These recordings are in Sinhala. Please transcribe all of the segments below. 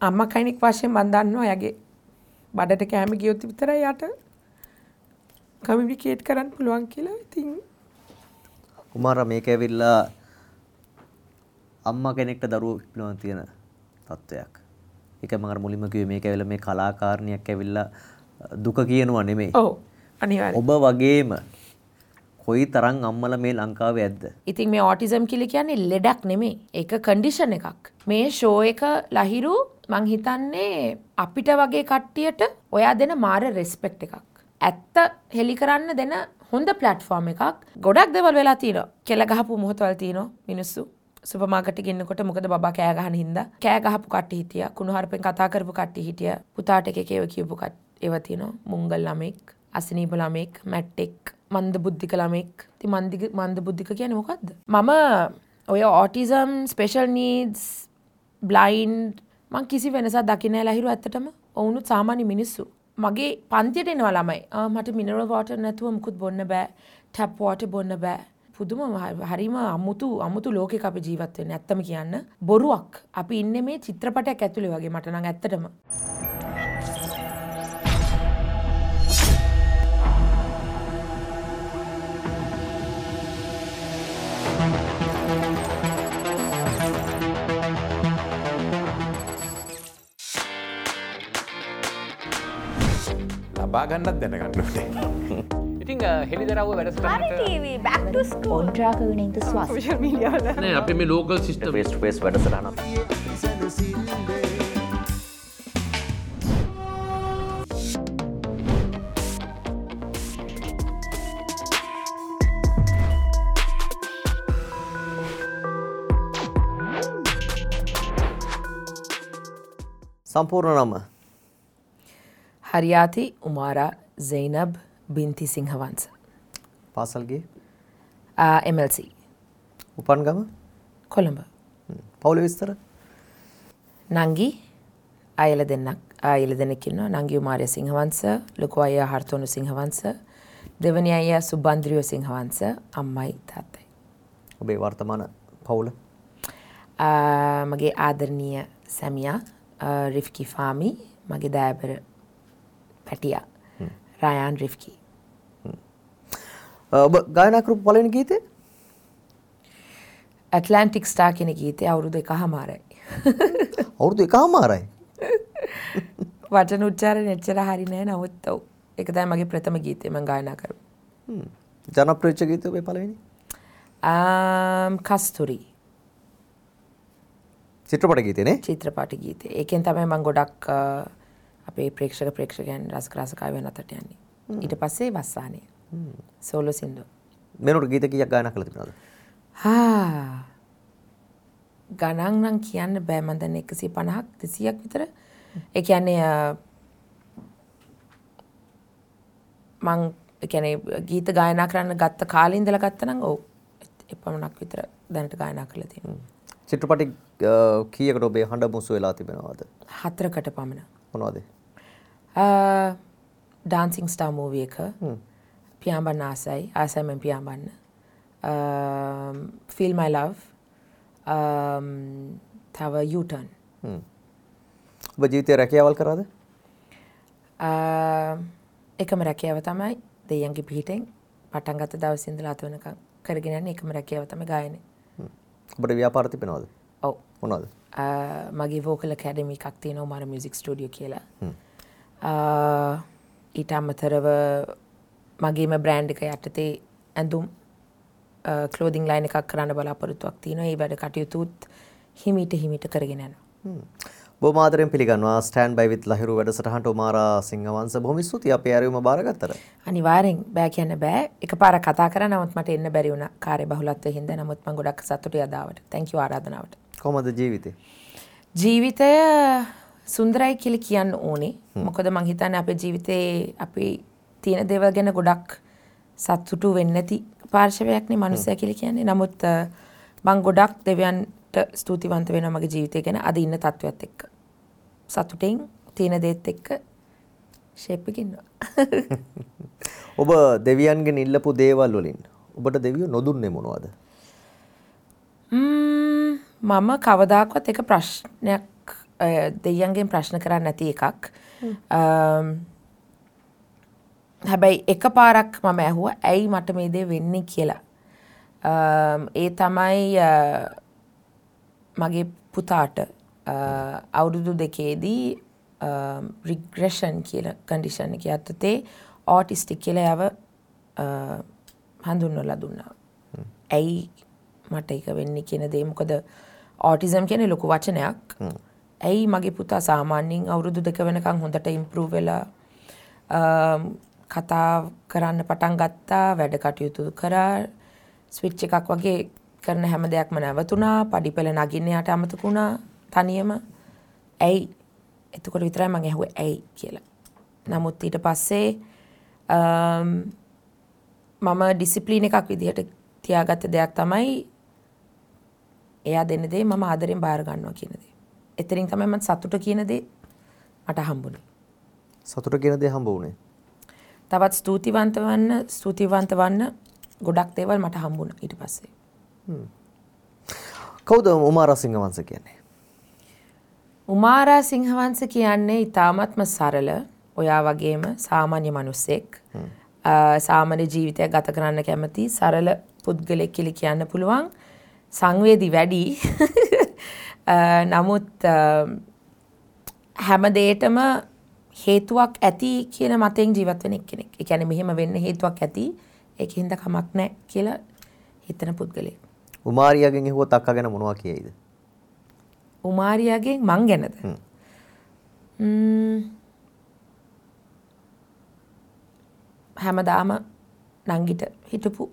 අම්මා කෙනෙක් වශයෙන් මම දන්නවා එයාගේ බඩට කෑම ගියොත් විතරයි යාට කමියුනිකේට් කරන්න පුළුවන් කියලා. ඉතින් කුමාරා මේක ඇවිල්ලා අම්මා කෙනෙක්ට දරුවෝ පිළිබඳව තියෙන තත්වයක්. ඒක මම අර මුලින්ම කිව්වේ මේක ඇවිල්ලා මේ කලාකාරණියක් ඇවිල්ලා දුක කියනවා නෙමෙයි. ඔව් අනිවාර්යයෙන්. ඔබ වගේම කොයි තරම් අම්මලා මේ ලංකාවේ ඇද්ද? ඉතින් මේ ඔටිසම් කියලා කියන්නේ ලෙඩක් නෙමෙයි. ඒක කන්ඩිෂන් එකක්. මේ ෂෝ එක ලහිරු මං හිතන්නේ අපිට වගේ කට්ටියට ඔයා දෙන මාර රෙස්පෙක්ට් එකක්. ඇත්ත හෙලි කරන්න දෙන හොඳ ප්ලැට්ෆෝම් එකක්. ගොඩක් දේවල් වෙලා තියෙනවා. කෙල ගහපු මොහොතවල් තියෙනවා මිනිස්සු. සුපර් මාකට් එකේ ඉන්නකොට මොකද බබා කෑ ගහන හින්දා කෑ ගහපු කට්ටිය හිටියා. කුණුහරුපෙන් කතා කරපු කට්ටිය හිටියා. පුතාට එක එක ඒවා කියපු ඒවා තියෙනවා. මුංගල් ළමෙක්, අසනීප ළමෙක්, මැට්ටෙක්, මන්ද බුද්ධික ළමෙක්. ඉතින් මන්ද බුද්ධික කියන්නේ මොකද්ද? මම ඔය ඔටිසම්, ස්පෙෂල් නීඩ්ස්, බ්ලයින්ඩ් මං කිසි වෙනසක් දකින්නේ නැහැ ලහිරු ඇත්තටම. ඔවුනුත් සාමාන්‍ය මිනිස්සු. මගේ පන්තියට එනවා ළමයි. මට මිනරල් වෝටර් නැතුව මුකුත් බොන්න බෑ. ටැප් වෝටර් බොන්න බෑ. පුදුම හරිම අමුතු ලෝකයක අපි ජීවත් වෙන්නේ. ඇත්තම කියන්න බොරුවක්. අපි ඉන්නේ මේ චිත්‍රපටයක් ඇතුලේ වගේ මට නම් ඇත්තටම. ලබා ගන්නත් දැනගන්න ඕනේ. ඉතින් හෙළිදරව්ව වැඩසටහනට හරි ටීවී බෑක් ටු ස්කූල් ඔන්ට්‍රාක ගුණින්ත ස්වාස් සෝෂල් මීඩියා වල නෑ අපි මේ local system face to face වැඩසටහන. සම්පූර්ණ නම හරියාති උමාරා සයිනබ් බින්ති සිංහවංශ. පාසල්ගේ MLC. උපන් ගම කොළඹ. පවුලේ විස්තර? නංගි අයල දෙන්නෙක් ඉන්නවා. නංගි උමාරිය සිංහවංශ, ලොකු අයියා හර්තෝනු සිංහවංශ, දෙවනි අයියා සුබන්ද්‍රියෝ සිංහවංශ, අම්මයි තාත්තයි. ඔබේ වර්තමාන පවුල? මගේ ආදරණීය සැමියා රිෆ්කි ෆාමි, මගේ දෑබර පැටියා රයන් රිෆ්කි. ඔබ ගායනා කරපු පළවෙනි ගීතය? ඇට්ලැන්ටික් ස්ටාර් කියන ගීතය අවුරුදු 1.5යි. අවුරුදු 1.5යි? වචන උච්චාරණ එච්චර හරි නෑ, නමුත් ඔව් ඒක තමයි මගේ ප්‍රථම ගීතය මම ගායනා කරපු. ජනප්‍රිය වෙච්ච ගීතය ඔබේ පළවෙනි? කස්තුරි. චිත්‍රපට ගීතය නේ? චිත්‍රපට ගීතය. ඒකෙන් තමයි මම ගොඩක් අපේ ප්‍රේක්ෂකයන් රසකාය වෙන අතට යන්නේ. ඊට පස්සේ වස්සානය. සෝලෝ සින්දුව. මෙනොට ගීත කීයක් ගායනා කළා තිබුණාද? හා ගණන් නම් කියන්න බෑ. මම දැන් 150ක් 200ක් විතර. ඒ කියන්නේ මං ඒ කියන්නේ ගීත ගායනා කරන්න ගත්ත කාලේ ඉඳලා ගත්තා නම් ඔව් එපමණක් විතර දැනට ගායනා කරලා තියෙනවා. චිත්‍රපටි කීයකට ඔබේ හඬ මුසු වෙලා තිබෙනවද? 4කට පමණ. මොනවද? ඩාන්සිං ස්ටාර් මූවි එක. පියාඹන්න ආසයි. ආසයි මම පියාඹන්න. Feel My Love. තව U-turn. ඔබ ජීවිතේ රැකියාවල් කරාද? එකම රැකියාව තමයි දෙයියන්ගේ පිහිටෙන් පටන් ගත්ත දවසේ ඉඳලා අත වෙනකන් කරගෙන යන්නේ එකම රැකියාව තමයි ගායනය. ඔබට ව්‍යාපාර තිබෙනවද? ඔව්. මොනවද? මගේ වෝකල් ඇකැඩමි එකක් තියෙනවා උමාර මියුසික් ස්ටුඩියෝ කියලා. ඊට අමතරව මගේම බ්‍රෑන්ඩ් එක යටතේ ඇඳුම් ක්ලෝදිං ලයින් එකක් කරන්න බලාපොරොත්තුවක් තියෙනවා. ඒ වැඩ කටයුතුත් හිමීට කරගෙන යනවා. බොහොම ආදරෙන් පිළිගන්නවා ස්ටෑන්ඩ් බයි විත් ලහිරු වැඩසටහනට උමාරා සිංහවංශ. බොහොම ස්තුතියි අපේ ඇරයුම බාරගත්තට. අනිවාර්යෙන් බෑ කියන්න බෑ. එකපාරක් කතා කරා නමුත් මට එන්න බැරි වුණා කාර්ය බහුලත්වය හින්දා. නමුත් මම ගොඩක් සතුටුයි අද ආවට. Thank you ආරාධනාවට. කොහොමද ජීවිතේ? ජීවිතය සුන්දරයි කියලා කියන්න ඕනේ. මොකද මං හිතන්නේ අපේ ජීවිතේ අපි තියෙන දේවල් ගැන ගොඩක් සතුටු වෙන්නේ නැති පාර්ශවයක් නේ මනුස්සයා කියලා කියන්නේ. නමුත් මං ගොඩක් දෙවියන්ට ස්තුතිවන්ත වෙනවා මගේ ජීවිතය ගැන අද ඉන්න තත්ත්වයත් එක්ක. සතුටින් තියෙන දේත් එක්ක ෂේප් එකේ ඉන්නවා. ඔබ දෙවියන්ගෙන් ඉල්ලපු දේවල් වලින් ඔබට දෙවියෝ නොදුන්නේ මොනවද? මම කවදාකවත් ඒක ප්‍රශ්නයක් දෙයියන්ගෙන් ප්‍රශ්න කරන්නේ නැති එකක්. හැබැයි එකපාරක් මම ඇහුවා ඇයි මට මේ දේ වෙන්නේ කියලා. ඒ තමයි මගේ පුතාට අවුරුදු දෙකේදී රිග්‍රෙෂන් කියන කන්ඩිෂන් එක යටතේ ඕටිස්ටික් කියලා එයාව හඳුන්වලා දුන්නා. ඇයි මට ඒක වෙන්නේ කියන දේ, මොකද ඕටිසම් කියන්නේ ලොකු වචනයක්. ඇයි මගේ පුතා සාමාන්‍යයෙන් අවුරුදු 2 වෙනකන් හොඳට ඉම්ප්‍රූව් වෙලා කතා කරන්න පටන් ගත්තා, වැඩ කටයුතු කරා, ස්විච් එකක් වගේ කරන හැම දෙයක්ම නැවතුණා, පඩිපෙළ නගින්න යාට අමතක වුණා තනියම. ඇයි? එතකොට විතරයි මං ඇහුවේ ඇයි කියලා. නමුත් ඊට පස්සේ මම ඩිසිප්ලින් එකක් විදිහට තියාගත්ත දෙයක් තමයි එයා දෙන දේ මම ආදරෙන් බාර ගන්නවා කියන දේ. එතනින් තමයි මම සතුට කියන දේ මට හම්බුනේ. සතුට කියන දේ හම්බ වුණේ? තවත් ස්තුතිවන්ත වන්න ගොඩක් දේවල් මට හම්බුණා ඊට පස්සේ. කවුද උමාරා සිංහවංශ කියන්නේ? උමාරා සිංහවංශ කියන්නේ ඉතාමත්ම සරල, ඔයා වගේම සාමාන්‍ය මිනිස්සෙක්. සාමාන්‍ය ජීවිතයක් ගත කරන්න කැමති සරල පුද්ගලෙක් කියලා කියන්න පුළුවන්. සංවේදී වැඩි. නමුත් හැම දෙයකටම හේතුවක් ඇති කියන මතයෙන් ජීවත් වෙන එක්කෙනෙක්. ඒ කියන්නේ මෙහෙම වෙන්න හේතුවක් ඇති, ඒකින්ද කමක් නැහැ කියලා හිතන පුද්ගලෙක්. උමාරියාගෙන් ඇහුවොත් අක්කා ගැන මොනවා කියයිද? උමාරියාගෙන් මං ගැනද? හැමදාම නංගිට හිටපු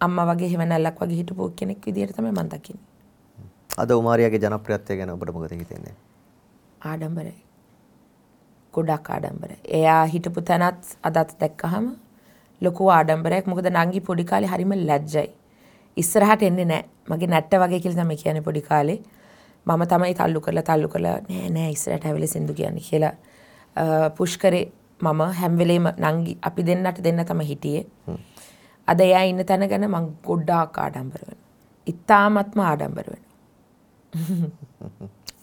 අම්මා වගේ හෙවණැල්ලක් වගේ හිටපු කෙනෙක් විදියට තමයි මං දකින්නේ. අද උමාරියාගේ ජනප්‍රියත්වය ගැන ඔබට මොකද හිතෙන්නේ? ආඩම්බරයි. ගොඩක් ආඩම්බරයි. එයා හිටපු තැනත් අදත් දැක්කහම ලොකු ආඩම්බරයක්. මොකද නංගි පොඩි කාලේ හරිම ලැජ්ජයි. ඉස්සරහට එන්නේ නැහැ. මගේ නැට්ට වගේ කියලා තමයි කියන්නේ පොඩි කාලේ. මම තමයි තල්ලු කරලා නෑ නෑ ඉස්සරහට ඇවිල්ලා සින්දු කියන්නේ කියලා පුෂ් කරේ. මම හැම වෙලේම නංගි අපි දෙන්නට දෙන්න තමයි හිටියේ. අද එයා ඉන්න තැන ගැන මං ගොඩාක් ආඩම්බර වෙනවා. ඉතාමත්ම ආඩම්බර වෙනවා.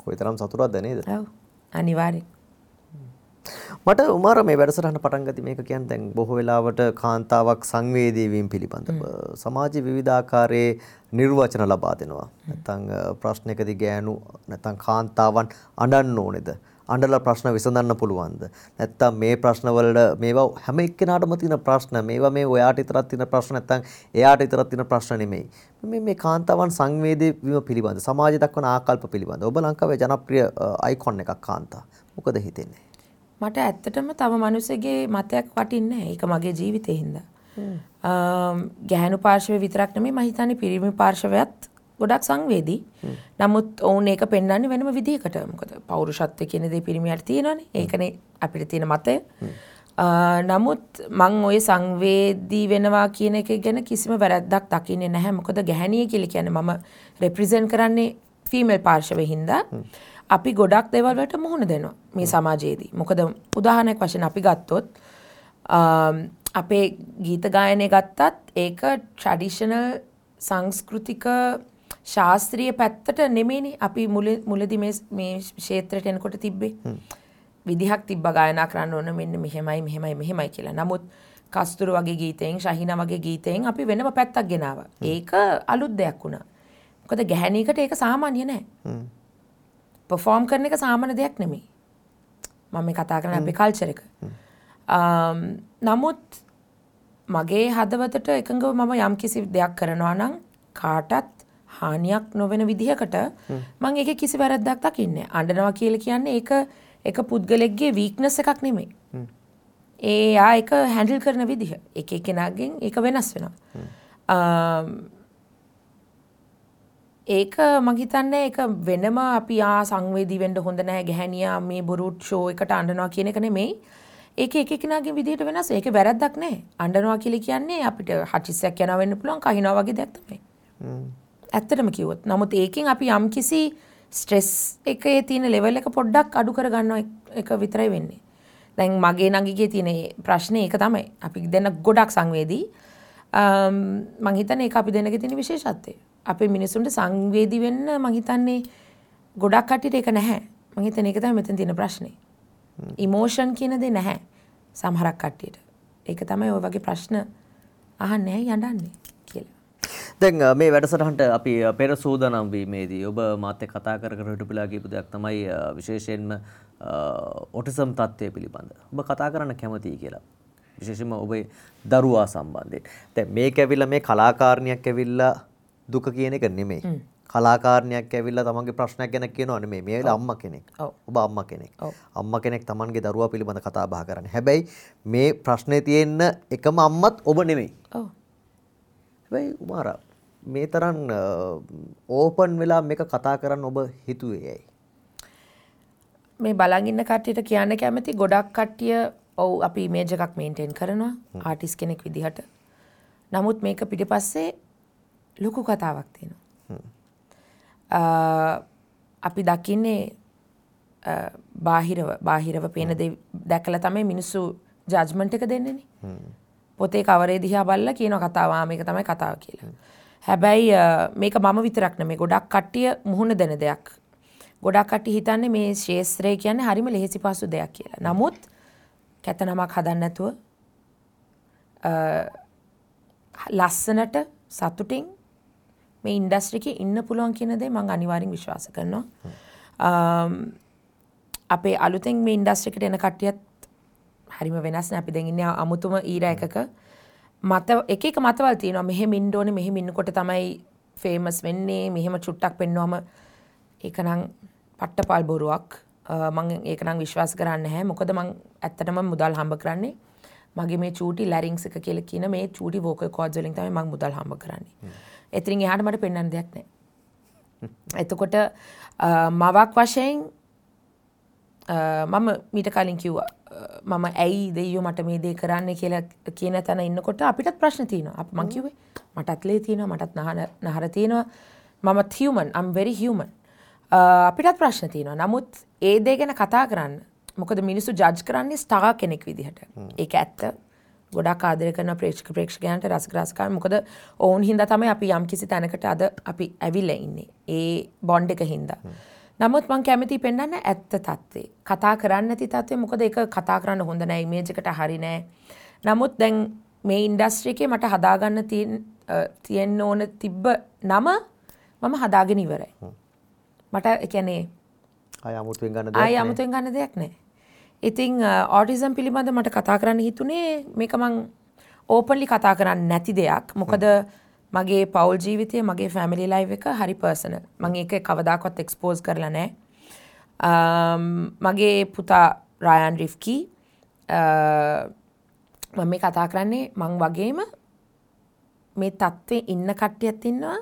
කොයිතරම් සතුටක්ද නේද? ඔව් අනිවාර්යෙන්. මට උමාරා මේ වැඩසටහන පටන් ගත්තී මේක කියන්නේ දැන් බොහෝ වෙලාවට කාන්තාවක් සංවේදී වීම පිළිබඳව සමාජයේ විවිධ ආකාරයේ නිර්වචන ලබා දෙනවා. නැත්නම් ප්‍රශ්නයකදී ගෑනු නැත්නම් කාන්තාවන් අඬන්න ඕනේද? අඬලා ප්‍රශ්න විසඳන්න පුළුවන්ද? නැත්නම් මේ ප්‍රශ්න වලට මේවා හැම එක්කෙනාටම තියෙන ප්‍රශ්න, මේවා මේ ඔයාට විතරක් තියෙන ප්‍රශ්න නැත්නම් එයාට විතරක් තියෙන ප්‍රශ්න නෙමෙයි. මේ කාන්තාවන් සංවේදී වීම පිළිබඳ සමාජය දක්වන ආකල්ප පිළිබඳ ඔබ ලංකාවේ ජනප්‍රිය අයිකොන් එකක් කාන්තා. මොකද හිතෙන්නේ? මට ඇත්තටම තව මිනිස්සුගේ මතයක් වටින්නේ නැහැ. ඒක මගේ ජීවිතේ හින්දා. ගැහැණු පාර්ශවය විතරක් නෙමෙයි මම හිතන්නේ පිරිමි පාර්ශවයත් ගොඩක් සංවේදී. නමුත් ඔවුන් ඒක පෙන්වන්නේ වෙනම විදිහකට. මොකද පෞරුෂත්වය කියන දේ පිරිමියාට තියෙනවනේ. ඒකනේ අපිට තියෙන මතය. නමුත් මං ඔය සංවේදී වෙනවා කියන එක ගැන කිසිම වැරැද්දක් දකින්නේ නැහැ. මොකද ගැහැණිය කියලා කියන්නේ මම රෙප්‍රසන්ට් කරන්නේ ෆීමේල් පාර්ශවය හින්දා. අපි ගොඩක් දේවල් වලට මුහුණ දෙනවා මේ සමාජයේදී. මොකද උදාහරණයක් වශයෙන් අපි ගත්තොත් අපේ ගීත ගායනය ගත්තත් ඒක ට්‍රැඩිෂනල් සංස්කෘතික ශාස්ත්‍රීය පැත්තට නෙමෙයිනේ අපි මුලදී මේ ක්ෂේත්‍රයට එනකොට තිබ්බේ. විදිහක් තිබ්බා ගායනා කරන්න ඕන මෙන්න මෙහෙමයි මෙහෙමයි මෙහෙමයි කියලා. නමුත් කස්තුරු වගේ ගීතයෙන් ශහීනා වගේ ගීතයෙන් අපි වෙනම පැත්තක් ගෙනාවා. ඒක අලුත් දෙයක් වුණා. මොකද ගැහැණියකට ඒක සාමාන්‍ය නෑ. පර්ෆෝම් කරන එක සාමාන්‍ය දෙයක් නෙමෙයි. මම මේ කතා කරන්නේ අපේ කල්චර් එක. නමුත් මගේ හදවතට එකඟව මම යම්කිසි දෙයක් කරනවා නම් කාටත් හානියක් නොවන විදිහකට මං ඒකේ කිසි වැරද්දක් දකින්නේ නෑ. අඬනවා කියලා කියන්නේ ඒක එක පුද්ගලෙක්ගේ වීක්නස් එකක් නෙමෙයි. ඒ ඒක හැන්ඩල් කරන විදිහ. එක එක්කෙනාගෙන් ඒක වෙනස් වෙනවා. ඒක මං හිතන්නේ ඒක වෙනම අපි සංවේදී වෙන්න හොඳ නැහැ ගැහැණියා මේ බොරු ෂෝ එකට අඬනවා කියන එක නෙමෙයි. ඒක එක එක්කෙනාගේ විදිහට වෙනස්. ඒක වැරද්දක් නෑ. අඬනවා කියලා කියන්නේ අපිට හටිස්සයක් යනවා වෙන්න පුළුවන්, කහිනවා වගේ දෙයක් තමයි. ඇත්තටම කිව්වොත්. නමුත් ඒකෙන් අපි යම්කිසි ස්ට්‍රෙස් එකේ තියෙන ලෙවල් එක පොඩ්ඩක් අඩු කර ගන්නවා එක විතරයි වෙන්නේ. දැන් මගේ නංගිගේ තියෙන ප්‍රශ්නේ ඒක තමයි. අපි දෙන්න ගොඩක් සංවේදී. මං හිතන්නේ ඒක අපි දෙන්නගේ තියෙන විශේෂත්වය. අපේ මිනිසුන්ට සංවේදී වෙන්න මං හිතන්නේ ගොඩක් කට්ටියට ඒක නැහැ. මං හිතන්නේ ඒක තමයි මෙතන තියෙන ප්‍රශ්නේ. ඉමෝෂන් කියන දේ නැහැ සමහරක් කට්ටියට. ඒක තමයි ඔය වගේ ප්‍රශ්න අහන්නේ ඇයි අඬන්නේ කියලා. දැන් මේ වැඩසටහනට අපි පෙර සූදානම් වීමේදී ඔබ මාත් එක්ක කතා කර කර හිටපු වෙලාව කියපු දෙයක් තමයි විශේෂයෙන්ම ඔටිසම් තත්ත්වය පිළිබඳ. ඔබ කතා කරන්න කැමතියි කියලා. විශේෂයෙන්ම ඔබේ දරුවා සම්බන්ධයෙන්. දැන් මේක ඇවිල්ලා මේ කලාකාරණියක් ඇවිල්ලා දුක කියන එක නෙමෙයි. කලාකාරණියක් ඇවිල්ලා තමන්ගේ ප්‍රශ්නයක් ගැන කියනවා නෙමෙයි. මේ ඇවිල්ලා අම්මා කෙනෙක්. ඔබ අම්මා කෙනෙක්. අම්මා කෙනෙක් තමන්ගේ දරුවා පිළිබඳ කතා බහ කරන්නේ. හැබැයි මේ ප්‍රශ්නේ තියෙන්න එකම අම්මත් ඔබ නෙමෙයි. ඔව්. හැබැයි උමාරා මේ තරම් ඕපන් වෙලා මේක කතා කරන්න ඔබ හිතුවේ ඇයි? මේ බලන් ඉන්න කට්ටියට කියන්න කැමති ගොඩක් කට්ටිය ඔව් අපි ඉමේජ් එකක් මේන්ටේන් කරනවා ආටිස්ට් කෙනෙක් විදිහට. නමුත් මේක පිටිපස්සේ ලොකු කතාවක් තියෙනවා. අපි දකින්නේ බාහිරව පේන දේ දැකලා තමයි මිනිස්සු ජජ්මන්ට් එක දෙන්නේනේ. පොතේ කවරේ දිහා බලලා කියන කතාව ආ මේක තමයි කතාව කියලා. හැබැයි මේක මම විතරක් නෙමෙයි ගොඩක් කට්ටිය මුහුණ දෙන දෙයක්. ගොඩක් කට්ටිය හිතන්නේ මේ ක්ෂේත්‍රය කියන්නේ හරිම ලෙහෙසි පහසු දෙයක් කියලා. නමුත් කැත නමක් හදන්න නැතුව ලස්සනට සතුටින් මේ ඉන්ඩස්ට්‍රි එකේ ඉන්න පුළුවන් කියන දේ මම අනිවාර්යෙන් විශ්වාස කරනවා. අපේ අලුතෙන් මේ ඉන්ඩස්ට්‍රි එකට එන කට්ටියත් හරිම වෙනස් නේ. අපි දැන් ඉන්නේ අමුතුම ඊරා එකක. මත එක එක මතවල් තියෙනවා. මෙහෙම ඉන්න ඕනේ, මෙහෙම ඉන්නකොට තමයි ෆේමස් වෙන්නේ. මෙහෙම චුට්ටක් පෙන්නුවම ඒක නම් පට්ටපල් බොරුවක්. මං ඒක නම් විශ්වාස කරන්නේ නැහැ. මොකද මං ඇත්තටම මුදල් හම්බ කරන්නේ මගේ මේ චූටි ලැරින්ග්ස් එක කියලා කියන මේ චූටි වෝකල් කෝඩ්ස් වලින් තමයි මං මුදල් හම්බ කරන්නේ. එතනින් එහාට මට පෙන්වන්න දෙයක් නැහැ. එතකොට මවක් වශයෙන් මම මීට කලින් කිව්වා මම ඇයි දෙයියෝ මට මේ දේ කරන්න කියලා කියන තැන ඉන්නකොට අපිටත් ප්‍රශ්න තියෙනවා. අපි මං කිව්වේ මටත් ලේ තියෙනවා, මටත් නහර තියෙනවා. මමත් human, I'm very human. අපිටත් ප්‍රශ්න තියෙනවා. නමුත් ඒ දේ ගැන කතා කරන්න. මොකද මිනිස්සු ජජ් කරන්නේ ස්ටාර් කෙනෙක් විදිහට. ඒක ඇත්ත. ගොඩක් ආදරය කරන ප්‍රේක්ෂකයන්ට රසික රසිකාන්. මොකද ඔවුන් හින්දා තමයි අපි යම් කිසි තැනකට අද අපි ඇවිල්ලා ඉන්නේ. ඒ බොන්ඩ් එක හින්දා. නමුත් මං කැමතියි පෙන්වන්න ඇත්ත තත්ත්වේ. කතා කරන්න නැති තත්ත්වේ. මොකද ඒක කතා කරන්න හොඳ නෑ, ඉමේජ් එකට හරි නෑ. නමුත් දැන් මේ ඉන්ඩස්ට්‍රි එකේ මට හදාගන්න තියෙන්න ඕන තිබ්බ නම මම හදාගෙන ඉවරයි. මට ඒ කියන්නේ ආය අමුතුවෙන් ගන්න දෙයක් නෑ. ආය අමුතුවෙන් ගන්න දෙයක් නෑ. ඉතින් ඔටිසම් පිළිබඳ මට කතා කරන්න හිතුනේ මේක මං ඕපන්ලි කතා කරන්න නැති දෙයක්. මොකද මගේ පවුල් ජීවිතය, මගේ ෆැමිලි ලයිෆ් එක හරි පර්සනල්. මං ඒක කවදාකවත් එක්ස්පෝස් කරලා නෑ. මගේ පුතා රයන් රිෆ්කි මම මේ කතා කරන්නේ මං වගේම මේ තත්ත්වේ ඉන්න කට්ටියත් ඉන්නවා,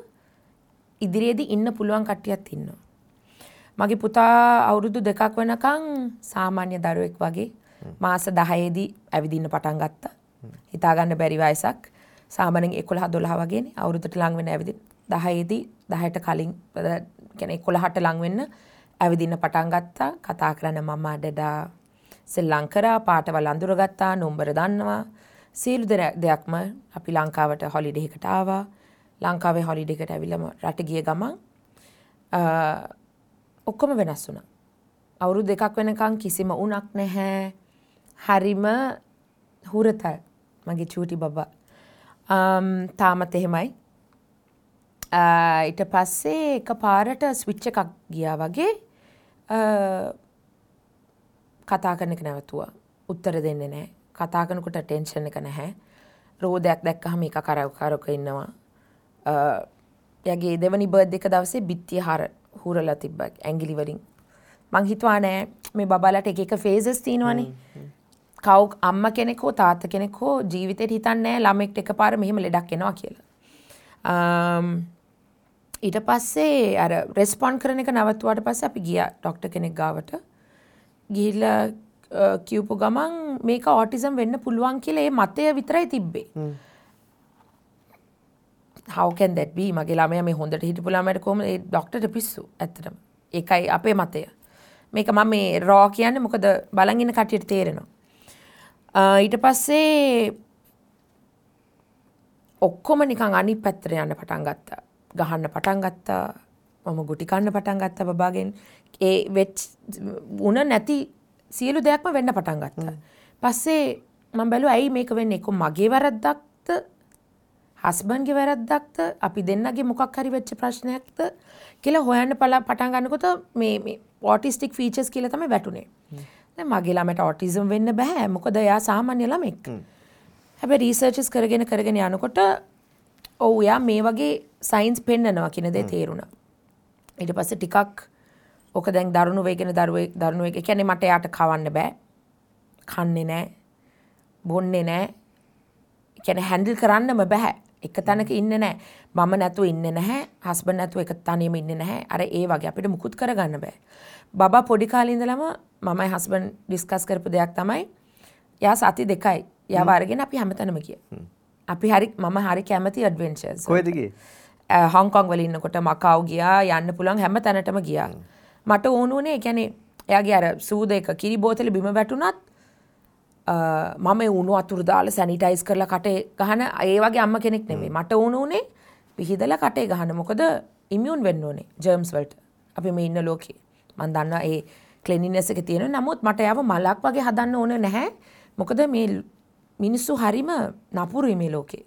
ඉදිරියේදී ඉන්න පුළුවන් කට්ටියත් ඉන්නවා. මගේ පුතා අවුරුදු 2ක් වෙනකන් සාමාන්‍ය දරුවෙක් වගේ මාස 10ේදී ඇවිදින්න පටන් ගත්තා. හිතා ගන්න බැරි වයසක්. සාමාන්‍යයෙන් 11 12 වගේනේ අවුරුද්දට ලං වෙන ඇවිදින්න. 10ේදී 10ට කලින් කියන්නේ 11ට ලං වෙන්න ඇවිදින්න පටන් ගත්තා. කතා කරන්න මම්මා ඩැඩා සෙල්ලම් කරා, පාටවල් අඳුරගත්තා, නම්බර දන්නවා. සියලු දෙයක්ම අපි ලංකාවට හොලිඩේ එකට ආවා. ලංකාවේ හොලිඩේ එකට ඇවිල්ලාම රට ගිය ගමන් ඔක්කොම වෙනස් වුණා. අවුරුදු 2ක් වෙනකන් කිසිම උණක් නැහැ. හරිම හුරතල් මගේ චූටි බබා. තාමත් එහෙමයි. ඊට පස්සේ එකපාරට ස්විච් එකක් ගියා වගේ කතා කරන එක නැවතුවා. උත්තර දෙන්නේ නැහැ. කතා කරනකොට ටෙන්ෂන් එක නැහැ. රෝදයක් දැක්කහම එක කරක ඉන්නවා. එයාගේ දෙවනි බර්ත්ඩේ එක දවසේ බිත්තිය හුරලා තිබ්බා ඇඟිලි වලින්. මං හිතුවා නෑ මේ බබාලට එක එක ෆේසස් තියෙනවනේ. කව් අම්මා කෙනෙක් හෝ තාත්තා කෙනෙක් හෝ ජීවිතේට හිතන්නේ නෑ ළමෙක්ට එකපාර මෙහෙම ලෙඩක් එනවා කියලා. ඊට පස්සේ අර රෙස්පොන්ඩ් කරන එක නවත්තුවාට පස්සේ අපි ගියා ඩොක්ටර් කෙනෙක් ගාවට. ගිහිල්ලා කියපු ගමන් මේක ඔටිසම් වෙන්න පුළුවන් කියලා ඒ මතය විතරයි තිබ්බේ. How can that be? මගේ ළමයා මේ හොඳට හිටපු ළමයාට කොහොමද ඒ ඩොක්ටර්ට පිස්සු ඇත්තටම. ඒකයි අපේ මතය. මේක මම මේ රෝ කියන්නේ මොකද බලන් ඉන්න කට්ටියට තේරෙනවා. ඊට පස්සේ ඔක්කොම නිකන් අනිත් පැත්තට යන්න පටන් ගත්තා. ගහන්න පටන් ගත්තා. මම ගුටි කන්න පටන් ගත්තා බබාගෙන්. ඒ වෙච් උන නැති සියලු දෙයක්ම වෙන්න පටන් ගත්තා. පස්සේ මම බැලුවා ඇයි මේක වෙන්නේ? එක්ක මගේ වැරද්දක්ද? හස්බන්ඩ්ගේ වැරද්දක්ද? අපි දෙන්නගේ මොකක් හරි වෙච්ච ප්‍රශ්නයක්ද කියලා හොයන්න පටන් ගන්නකොට මේ මේ ඔටිස්ටික් ෆීචර්ස් කියලා තමයි වැටුනේ. දැන් මගේ ළමයට ඔටිසම් වෙන්න බෑ. මොකද එයා සාමාන්‍ය ළමෙක්. හැබැයි රිසර්චස් කරගෙන කරගෙන යනකොට ඔව් එයා මේ වගේ සයින්ස් පෙන්නනවා කියන දේ තේරුණා. ඊට පස්සේ ටිකක් ඔක දැන් දරුණු වෙගෙන දරුණු වෙගෙන කියන්නේ මට එයාට කවන්න බෑ. කන්නේ නෑ. බොන්නේ නෑ. කියන්නේ හැන්ඩල් කරන්නම බෑ. එක තැනක ඉන්නේ නෑ. මම නැතුව ඉන්නේ නැහැ. හස්බන්ඩ් නැතුව එක තනියම ඉන්නේ නැහැ. අර ඒ වගේ අපිට මුකුත් කරගන්න බෑ. බබා පොඩි කාලේ ඉඳලම මමයි හස්බන්ඩ් ඩිස්කස් කරපු දෙයක් තමයි එයා සති දෙකයි. එයාව අරගෙන අපි හැමතැනම ගියා. අපි හරි මම හරි කැමති ඇඩ්වෙන්චර්ස්. කොහෙද ගියේ? හොංකොං වල ඉන්නකොට මකාව් ගියා, යන්න පුළුවන් හැම තැනටම ගියා. මට ඕන වුණේ ඒ කියන්නේ එයාගේ අර සූද එක කිරි බෝතලේ බිම වැටුණත් මම ඒ උණු වතුර දාලා සැනිටයිස් කරලා කටේ ගහන ඒ වගේ අම්මා කෙනෙක් නෙමෙයි. මට ඕන වුණේ පිහිදලා කටේ ගහන. මොකද ඉමියුන් වෙන්න ඕනේ ජර්ම්ස් වලට. අපි මේ ඉන්න ලෝකේ. මං දන්නවා ඒ ක්ලීන්ලිනස් එක තියෙනවා. නමුත් මට එයාව මලක් වගේ හදන්න ඕන නැහැ. මොකද මේ මිනිස්සු හරිම නපුරුයි මේ ලෝකේ.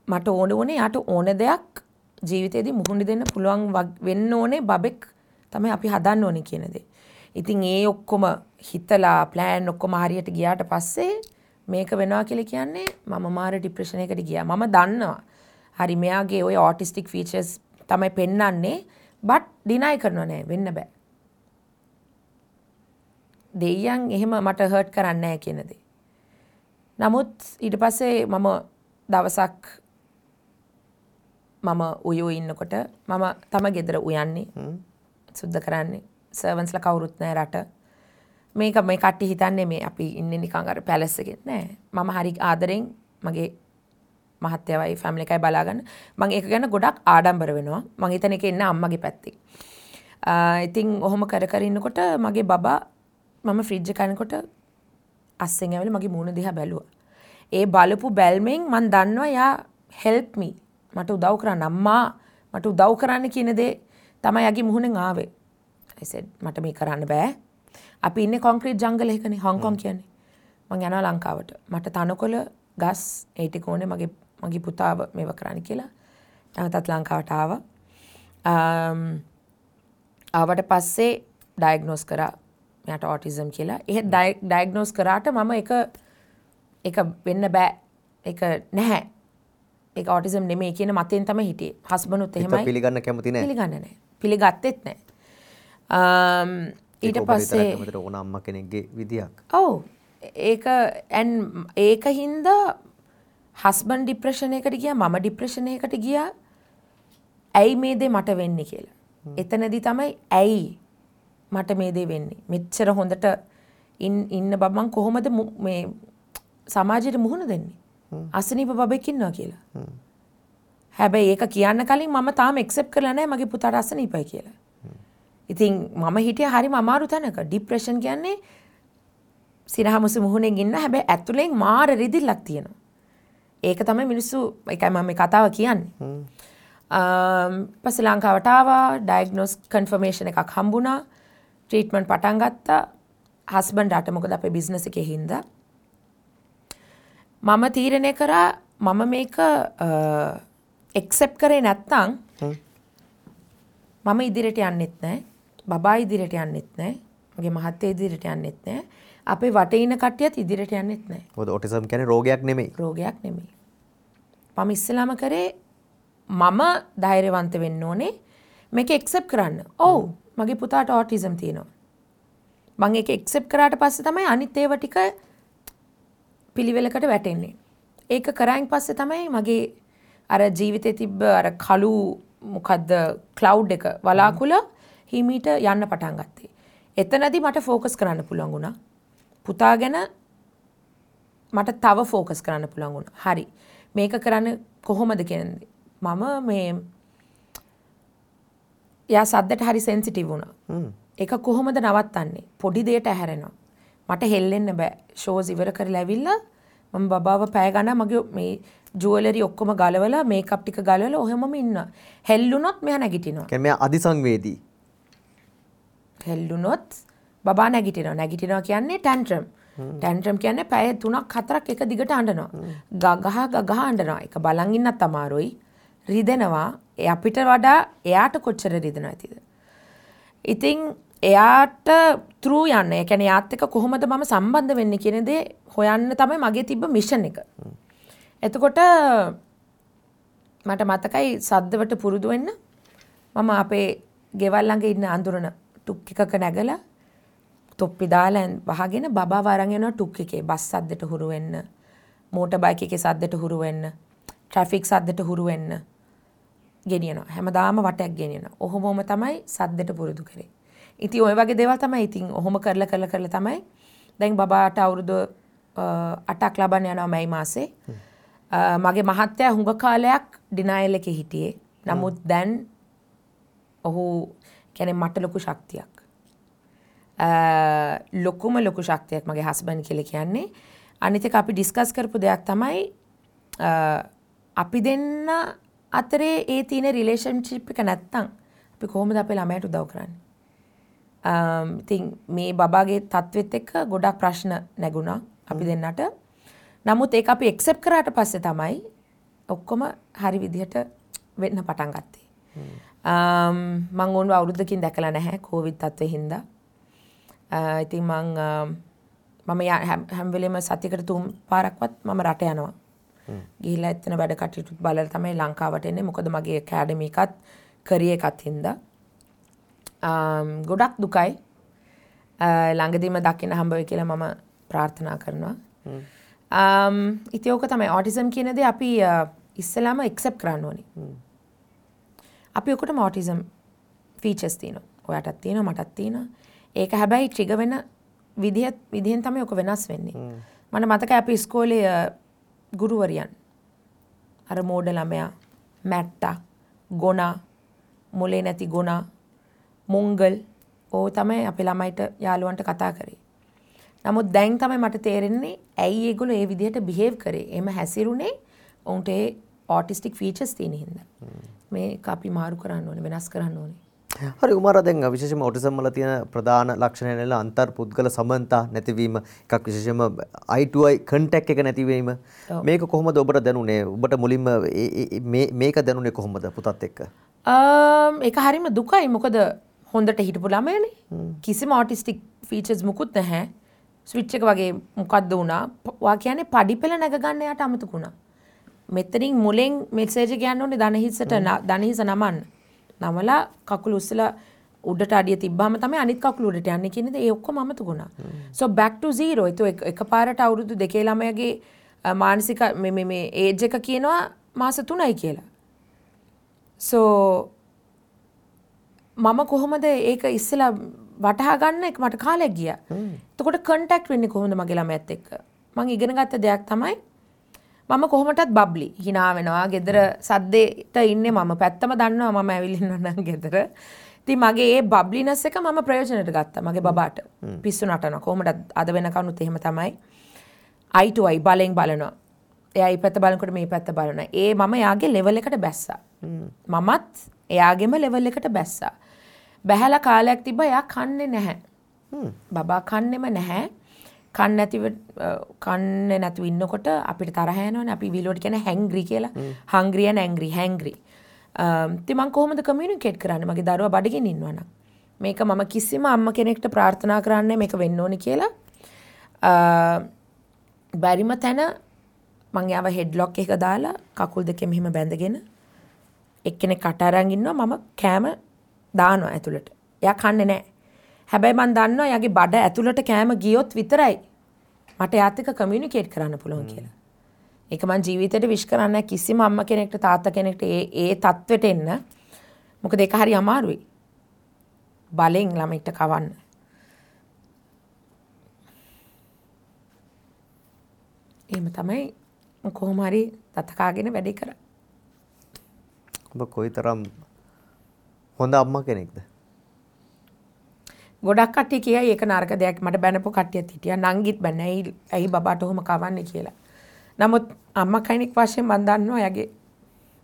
මට ඕන වුණේ යාට ඕන දෙයක් ජීවිතේදී මුහුණ දෙන්න පුළුවන් වෙන්න ඕනේ බබෙක් තමයි අපි හදන්න ඕනේ කියන දේ. ඉතින් ඒ ඔක්කොම හිතලා ප්ලෑන් ඔක්කොම හරියට ගියාට පස්සේ මේක වෙනවා කියලා කියන්නේ මම මාර ડિප්‍රෙෂන් එකකට ගියා. මම දන්නවා හරි මෙයාගේ ඔය ඔටිස්ටික් ෆීචර්ස් තමයි පෙන්වන්නේ, බට් ඩිනයි කරනවා නෑ, වෙන්න බෑ. දෙයියන් එහෙම මට හර්ට් කරන්නේ නෑ කියන දේ. නමුත් ඊට පස්සේ මම දවසක් මම උයෝ ඉන්නකොට මම තම ගෙදර උයන්නේ, සුද්ධ කරන්නේ. සර්වන්ස්ලා කවුරුත් නෑ රට. මේක මේ කට්ටිය හිතන්නේ මේ අපි ඉන්නේ නිකන් අර පැලස් එකේ නෑ. මම හරි ආදරෙන් මගේ මහත්තයාවයි ෆැමිලි එකයි බලාගන්න. මං ඒක ගැන ගොඩක් ආඩම්බර වෙනවා. මං හිතන එක එන්නේ අම්මගේ පැත්තෙන්. ඉතින් ඔහොම කර කර ඉන්නකොට මගේ බබා මම ෆ්‍රිජ් එක අනකොට අස්සෙන් ඇවිල්ලා මගේ මූණ දිහා බැලුවා. ඒ බලපු බැල්මෙන් මං දන්නවා යා හෙල්ප් මී, මට උදව් කරන්න අම්මා, මට උදව් කරන්න කියන දේ තමයි යාගේ මුහුණෙන් ආවේ. I said මට මේ කරන්න බෑ. අපි ඉන්නේ කොන්ක්‍රීට් ජංගල් එකකනේ හොංකොං කියන්නේ. මං යනවා ලංකාවට. මට තනකොළ ගස් ඒ ටික ඕනේ මගේ මගේ පුතාව මේව කරන්න කියලා. නැවතත් ලංකාවට ආවා. ආවට පස්සේ ඩයග්නෝස් කරා මෙයාට ඔටිසම් කියලා. එහෙ ඩයග්නෝස් කරාට මම ඒක වෙන්න බෑ. ඒක නැහැ. ඒක ඔටිසම් නෙමෙයි කියන මතෙන් තමයි හිටියේ. හස්බන්ඩ්ුත් එහෙමයි. පිළිගන්න කැමති නෑ. පිළිගන්නේ නෑ. පිළිගත්තෙත් නෑ. ඊට පස්සේ කැමතිට ඕන අම්මා කෙනෙක්ගේ විදියක්. ඔව්. ඒක ඒක හින්දා හස්බන්ඩ් ડિප්‍රෙෂන් එකට ගියා, මම ડિප්‍රෙෂන් එකට ගියා. ඇයි මේ දේ මට වෙන්නේ කියලා. එතනදී තමයි ඇයි මට මේ දේ වෙන්නේ. මෙච්චර හොඳට ඉන්න බබ මං කොහොමද මේ සමාජයට මුහුණ දෙන්නේ? අසනීප බබෙක් ඉන්නවා කියලා. හැබැයි ඒක කියන්න කලින් මම තාම ඇක්සෙප්ට් කරලා නැහැ මගේ පුතාට අසනීපයි කියලා. ඉතින් මම හිටියා හරිම අමාරු තැනක. ડિප්‍රෙෂන් කියන්නේ සිනහමුසු මුහුණෙන් ඉන්න, හැබැයි ඇතුලෙන් මාර රිදිල්ලක් තියෙනවා. ඒක තමයි මිනිස්සු, ඒකයි මම මේ කතාව කියන්නේ. පස්සේ ලංකාවට ආවා, ඩයග්නෝස් කන්ෆර්මේෂන් එකක් හම්බුණා, ට්‍රීට්මන්ට් පටන් ගත්තා. හස්බන්ඩ් අට මොකද අපේ බිස්නස් එකේ හින්දා මම තීරණය කරා මම මේක ඇක්සෙප්ට් කරේ නැත්නම් මම ඉදිරියට යන්නෙත් නෑ, බබා ඉදිරියට යන්නෙත් නෑ, මගේ මහත්තයා ඉදිරියට යන්නෙත් නෑ, අපේ වටේ ඉන්න කට්ටියත් ඉදිරියට යන්නෙත් නෑ. මොකද ඔටිසම් කියන්නේ රෝගයක් නෙමෙයි. රෝගයක් නෙමෙයි. මම ඉස්සෙල්ලාම කරේ මම ධෛර්යවන්ත වෙන්න ඕනේ මේක ඇක්සෙප්ට් කරන්න. ඔව් මගේ පුතාට ඔටිසම් තියෙනවා. මං ඒක ඇක්සෙප්ට් කරාට පස්සේ තමයි අනිත් ඒවා ටික පිළිවෙලකට වැටෙන්නේ. ඒක කරායින් පස්සේ තමයි මගේ අර ජීවිතේ තිබ්බ අර කළු මොකද්ද ක්ලවුඩ් එක වලාකුළ හිමීට යන්න පටන් ගත්තේ. එතනදී මට ෆෝකස් කරන්න පුළුවන් වුණා. පුතා ගැන මට තව ෆෝකස් කරන්න පුළුවන් වුණා. හරි. මේක කරන්න කොහොමද කියන්නේ. මම මේ යා සද්දට හරි සෙන්සිටිව් වුණා. ඒක කොහොමද නවත්තන්නේ? පොඩි දෙයට ඇහැරෙනවා. මට හෙල්ලෙන්න බෑ. ෂෝස් ඉවර කරලා ඇවිල්ලා මම බබාව පැය ගණන් මගේ මේ ජුවලරි ඔක්කොම ගලවලා මේකප් ටික ගලවලා ඔහෙමම ඉන්නවා. හෙල්ලුනොත් මෙයා නැගිටිනවා. කියන්නේ මෙයා අදිසංවේදී. හෙල්ලුනොත් බබා නැගිටිනවා. නැගිටිනවා කියන්නේ ටැන්ට්‍රම්. ටැන්ට්‍රම් කියන්නේ පැය 3ක් 4ක් එක දිගට අඬනවා. ගගහ ගගහ අඬනවා. ඒක බලන් ඉන්නත් අමාරුයි. රිදෙනවා. ඒ අපිට වඩා එයාට කොච්චර රිදෙනවද ඇතිද? ඉතින් එයාට ත්‍රූ යන්න. ඒ කියන්නේ එයාත් එක්ක කොහොමද මම සම්බන්ධ වෙන්නේ කියන දේ හොයන්න තමයි මගේ තිබ්බ මිෂන් එක. එතකොට මට මතකයි සද්දවට පුරුදු වෙන්න මම අපේ ගෙවල් ළඟ ඉන්න අඳුරන ටුක් එකක නැගලා තොප්පි දාලා වහගෙන බබාව අරන් යනවා ටුක් එකේ. බස් සද්දට හුරු වෙන්න, මෝටර් බයික් එකේ සද්දට හුරු වෙන්න, ට්‍රැෆික් සද්දට හුරු වෙන්න ගෙනියනවා. හැමදාම වටයක් ගෙනියනවා. ඔහොමම තමයි සද්දට පුරුදු කරේ. ඉතින් ඔය වගේ දේවල් තමයි ඉතින් ඔහොම කරලා කරලා කරලා තමයි දැන් බබාට අවුරුදු 8ක් ලබන්න යනවා මැයි මාසේ. මගේ මහත්තයා හුඟ කාලයක් ඩිනයල් එකේ හිටියේ. නමුත් දැන් ඔහු කියන්නේ මට ලොකු ශක්තියක්. ලොකුම ලොකු ශක්තියක් මගේ හස්බන්ඩ් කියලා කියන්නේ. අනිත් එක අපි ඩිස්කස් කරපු දෙයක් තමයි අපි දෙන්න අතරේ ඒ තියෙන රිලේෂන්ෂිප් එක නැත්තම් අපි කොහොමද අපේ ළමයාට උදව් කරන්නේ? ඉතින් මේ බබාගේ තත්ත්වෙත් එක්ක ගොඩක් ප්‍රශ්න නැගුණා අපි දෙන්නට. නමුත් ඒක අපි ඇක්සෙප්ට් කරාට පස්සේ තමයි ඔක්කොම හරි විදිහට වෙන්න පටන් ගත්තේ. මං ඕනව අවුරුද්දකින් දැකලා නැහැ කොවිඩ් තත්ත්වෙ හින්දා. ඉතින් මම හැම වෙලේම සතියකට 3 පාරක්වත් මම රට යනවා. ගිහිල්ලා එතන වැඩ කටයුතු බලලා තමයි ලංකාවට එන්නේ. මොකද මගේ ඇකඩමි එකත් කරියර් එකත් හින්දා. ගොඩක් දුකයි. ළඟදීම දකින්න හම්බ වෙයි කියලා මම ප්‍රාර්ථනා කරනවා. ඉතින් ඕක තමයි ඔටිසම් කියන දේ අපි ඉස්සෙල්ලාම ඇක්සෙප්ට් කරන්න ඕනේ. අපි ඔක්කොටම ඔටිසම් ෆීචර්ස් තියෙනවා. ඔයාටත් තියෙනවා, මටත් තියෙනවා. ඒක හැබැයි ට්‍රිගර් වෙන විදිහෙන් තමයි ඔක වෙනස් වෙන්නේ. මට මතකයි අපි ඉස්කෝලේ ගුරුවරියන් අර මෝඩ ළමයා, මැට්ටා, ගොනා, මොලේ නැති ගොනා, මොංගල් ඕ තමයි අපේ ළමයිට යාළුවන්ට කතා කරේ. නමුත් දැන් තමයි මට තේරෙන්නේ ඇයි ඒගොල්ලෝ ඒ විදිහට බිහේව් කරේ. එහෙම හැසිරුනේ ඔවුන්ට ඒ ඔටිස්ටික් ෆීචර්ස් තියෙන හින්දා. මේක අපි මාරු කරන්න ඕනේ, වෙනස් කරන්න ඕනේ. හරි උමාරා, දැන් විශේෂයෙන්ම ඔටිසම් වල තියෙන ප්‍රධාන ලක්ෂණය නෙල අන්තර්පුද්ගල සමන්තා නැතිවීම එකක්, විශේෂයෙන්ම eye to eye contact එක නැතිවීම. මේක කොහොමද ඔබට දැනුනේ? ඔබට මුලින්ම මේක දැනුනේ කොහොමද පුතත් එක්ක? ඒක හරිම දුකයි. මොකද හොඳට හිටපු ළමයානේ. කිසිම ඔටිස්ටික් ෆීචර්ස් මුකුත් නැහැ. ස්විච් එක වගේ මොකද්ද වුණා? ඔයා කියන්නේ පඩි පෙළ නැග ගන්න එයාට අමතක වුණා. මෙතනින් මුලෙන් මෙසේජ් එක යන්න ඕනේ දණහිසට, දණහිස නමන්න. නමලා කකුල උස්සලා උඩට අඩිය තිබ්බාම තමයි අනිත් කකුල උඩට යන්නේ කියන දේ ඒ ඔක්කොම අමතක වුණා. So back to zero. ඒක එකපාරට අවුරුදු 2 ළමයාගේ මානසික මේ මේ ඒජ් එක කියනවා මාස 3යි කියලා. So මම කොහොමද ඒක ඉස්සෙල්ලා වටහා ගන්න එක මට කාලයක් ගියා. එතකොට කන්ටැක්ට් වෙන්නේ කොහොමද මගේ ළමයාත් එක්ක? මං ඉගෙන ගත්ත දෙයක් තමයි මම කොහොමටත් බබ්ලි hina වෙනවා. ගෙදර සද්දේට ඉන්නේ මම. පැත්තම දන්නවා මම ඇවිල්ලා ඉන්නවා නම් ගෙදර. ඉතින් මගේ ඒ බබ්ලිනස් එක මම ප්‍රයෝජනට ගත්තා මගේ බබාට. පිස්සු නටනවා. කොහොමටත් අද වෙනකනුත් එහෙම තමයි. eye to eye බලෙන් බලනවා. එයා මේ පැත්ත බලනකොට මේ පැත්ත බලනවා. ඒ මම එයාගේ ලෙවල් එකට බැස්සා. මමත් එයාගේම ලෙවල් එකට බැස්සා. බැහැලා කාලයක් තිබ්බා එයා කන්නේ නැහැ. බබා කන්නේම නැහැ. කන්නේ නැතුව ඉන්නකොට අපිට තරහ යනවනේ. අපි විලුවට කියන්නේ හැංග්‍රි කියලා. හංග්‍රි and angry, හැංග්‍රි. ඉතින් මං කොහොමද කමියුනිකේට් කරන්නේ මගේ දරුවා බඩගින්න ඉන්නවා නම්? මේක මම කිසිම අම්මා කෙනෙක්ට ප්‍රාර්ථනා කරන්නේ මේක වෙන්න ඕනේ කියලා. බැරිම තැන මං යාව හෙඩ්ලොක් එක දාලා කකුල් දෙකෙන් මෙහෙම බැඳගෙන එක්කෙනෙක් කට අරන් ඉන්නවා, මම කෑම දානවා ඇතුළට. එයා කන්නේ නැහැ. හැබැයි මං දන්නවා එයාගේ බඩ ඇතුළට කෑම ගියොත් විතරයි මට එයාත් එක්ක කමියුනිකේට් කරන්න පුළුවන් කියලා. ඒක මං ජීවිතේට විශ් කරන්නේ කිසිම අම්මා කෙනෙක්ට තාත්තා කෙනෙක්ට ඒ ඒ තත්වෙට එන්න. මොකද ඒක හරි අමාරුයි. බලෙන් ළමයිට කවන්න. එහෙම තමයි කොහොම හරි දත කාගෙන වැඩේ කරා. ඔබ කොයිතරම් හොඳ අම්මා කෙනෙක්ද? ගොඩක් කට්ටිය කියයි ඒක නරක දෙයක්. මට බැනපු කට්ටියත් හිටියා. නංගිත් බැන ඇයි බබාට ඔහොම කවන්නේ කියලා. නමුත් අම්මා කෙනෙක් වශයෙන් මං දන්නවා එයාගේ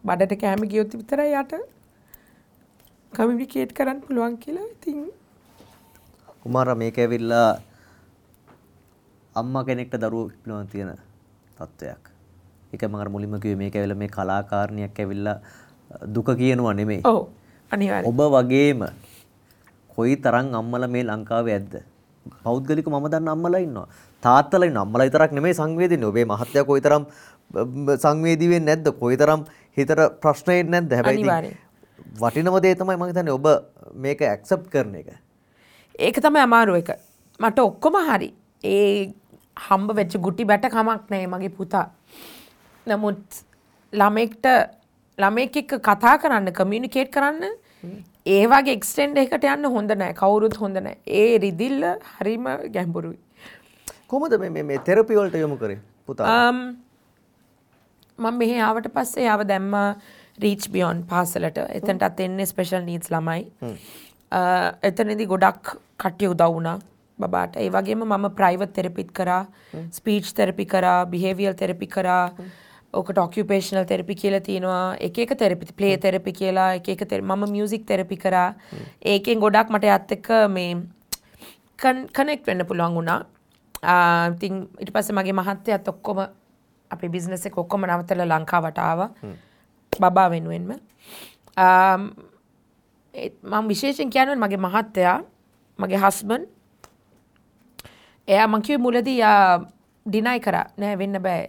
බඩට කෑම ගියොත් විතරයි යාට කමියුනිකේට් කරන්න පුළුවන් කියලා. ඉතින් කුමාරා මේක ඇවිල්ලා අම්මා කෙනෙක්ට දරුවෝ පිළිබඳ තියෙන තත්ත්වයක්. ඒක මම අර මුලින්ම කිව්වේ මේක ඇවිල්ලා මේ කලාකාරණියක් ඇවිල්ලා දුක කියනවා නෙමෙයි. ඔව් අනිවාර්යයෙන්. ඔබ වගේම කොයි තරම් අම්මලා මේ ලංකාවේ ඇද්ද? පෞද්ගලිකව මම දන්න අම්මලා ඉන්නවා. තාත්තලා ඉන්නවා. අම්මලා විතරක් නෙමෙයි සංවේදීන්නේ. ඔබේ මහත්තයා කොයි තරම් සංවේදී වෙන්නේ නැද්ද? කොයි තරම් හිතට ප්‍රශ්න එන්නේ නැද්ද? හැබැයි ඉතින් වටිනම දේ තමයි මම හිතන්නේ ඔබ මේක ඇක්සෙප්ට් කරන එක. ඒක තමයි අමාරු එක. මට ඔක්කොම හරි. ඒ හම්බ වෙච්ච ගුටි බැට කමක් නෑ මගේ පුතා. නමුත් ළමයෙක් එක්ක කතා කරන්න, කමියුනිකේට් කරන්න ඒ වගේ එක්ස්ටෙන්ඩ් එකකට යන්න හොඳ නෑ. කවුරුත් හොඳ නෑ. ඒ රිදිල්ල හරිම ගැඹුරුයි. කොහොමද මේ මේ තෙරපි වලට යොමු කරේ පුතා? මම මෙහෙ ආවට පස්සේ ආව දැම්මා රීච් බියොන්ඩ් පාසලට. එතනටත් එන්නේ ස්පෙෂල් නීඩ්ස් ළමයි. එතනදී ගොඩක් කට්ටිය උදව් වුණා බබාට. ඒ වගේම මම ප්‍රයිවට් තෙරපිත් කරා, ස්පීච් තෙරපි කරා, බිහේවියරල් තෙරපි කරා. ඕකට ඔකියුපේෂනල් තෙරපි කියලා තියෙනවා. එක එක තෙරපි, ප්ලේ තෙරපි කියලා එක එක මම මියුසික් තෙරපි කරා. ඒකෙන් ගොඩක් මට එයාත් එක්ක මේ කනෙක්ට් වෙන්න පුළුවන් වුණා. ඉතින් ඊට පස්සේ මගේ මහත්තයාත් ඔක්කොම අපේ බිස්නස් එක ඔක්කොම නවත්තලා ලංකාවට ආවා. බබා වෙනුවෙන්ම. මම විශේෂයෙන් කියන්නේ මගේ මහත්තයා, මගේ හස්බන්ඩ්, එයා මං කිව්වේ මුලදී යා ඩිනයි කරා. නෑ වෙන්න බෑ.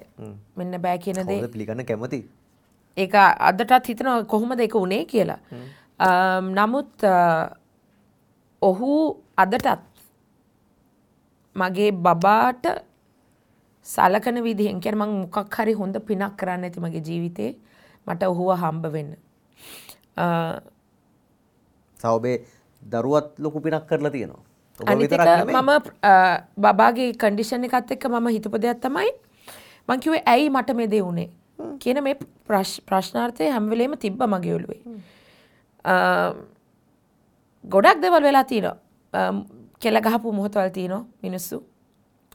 වෙන්න බෑ කියන දේ. කවුද පිළිගන්න කැමති? ඒක අදටත් හිතනවා කොහොමද ඒක උනේ කියලා. නමුත් ඔහු අදටත් මගේ බබාට සලකන විදිහෙන් කියන්නේ මං මොකක් හරි හොඳ පිනක් කරන්න ඇති මගේ ජීවිතේ මට ඔහුව හම්බ වෙන්න. සහ ඔබේ දරුවත් ලොකු පිනක් කරලා තියෙනවා. අනිත් එක මම බබාගේ කන්ඩිෂන් එකත් එක්ක මම හිතපු දෙයක් තමයි මං කිව්වේ ඇයි මට මේ දේ වුනේ කියන මේ ප්‍රශ්නාර්ථය හැම වෙලේම තිබ්බ මගේ ඔළුවේ. ගොඩක් දේවල් වෙලා තියෙනවා. කෙල ගහපු මොහොතවල් තියෙනවා මිනිස්සු.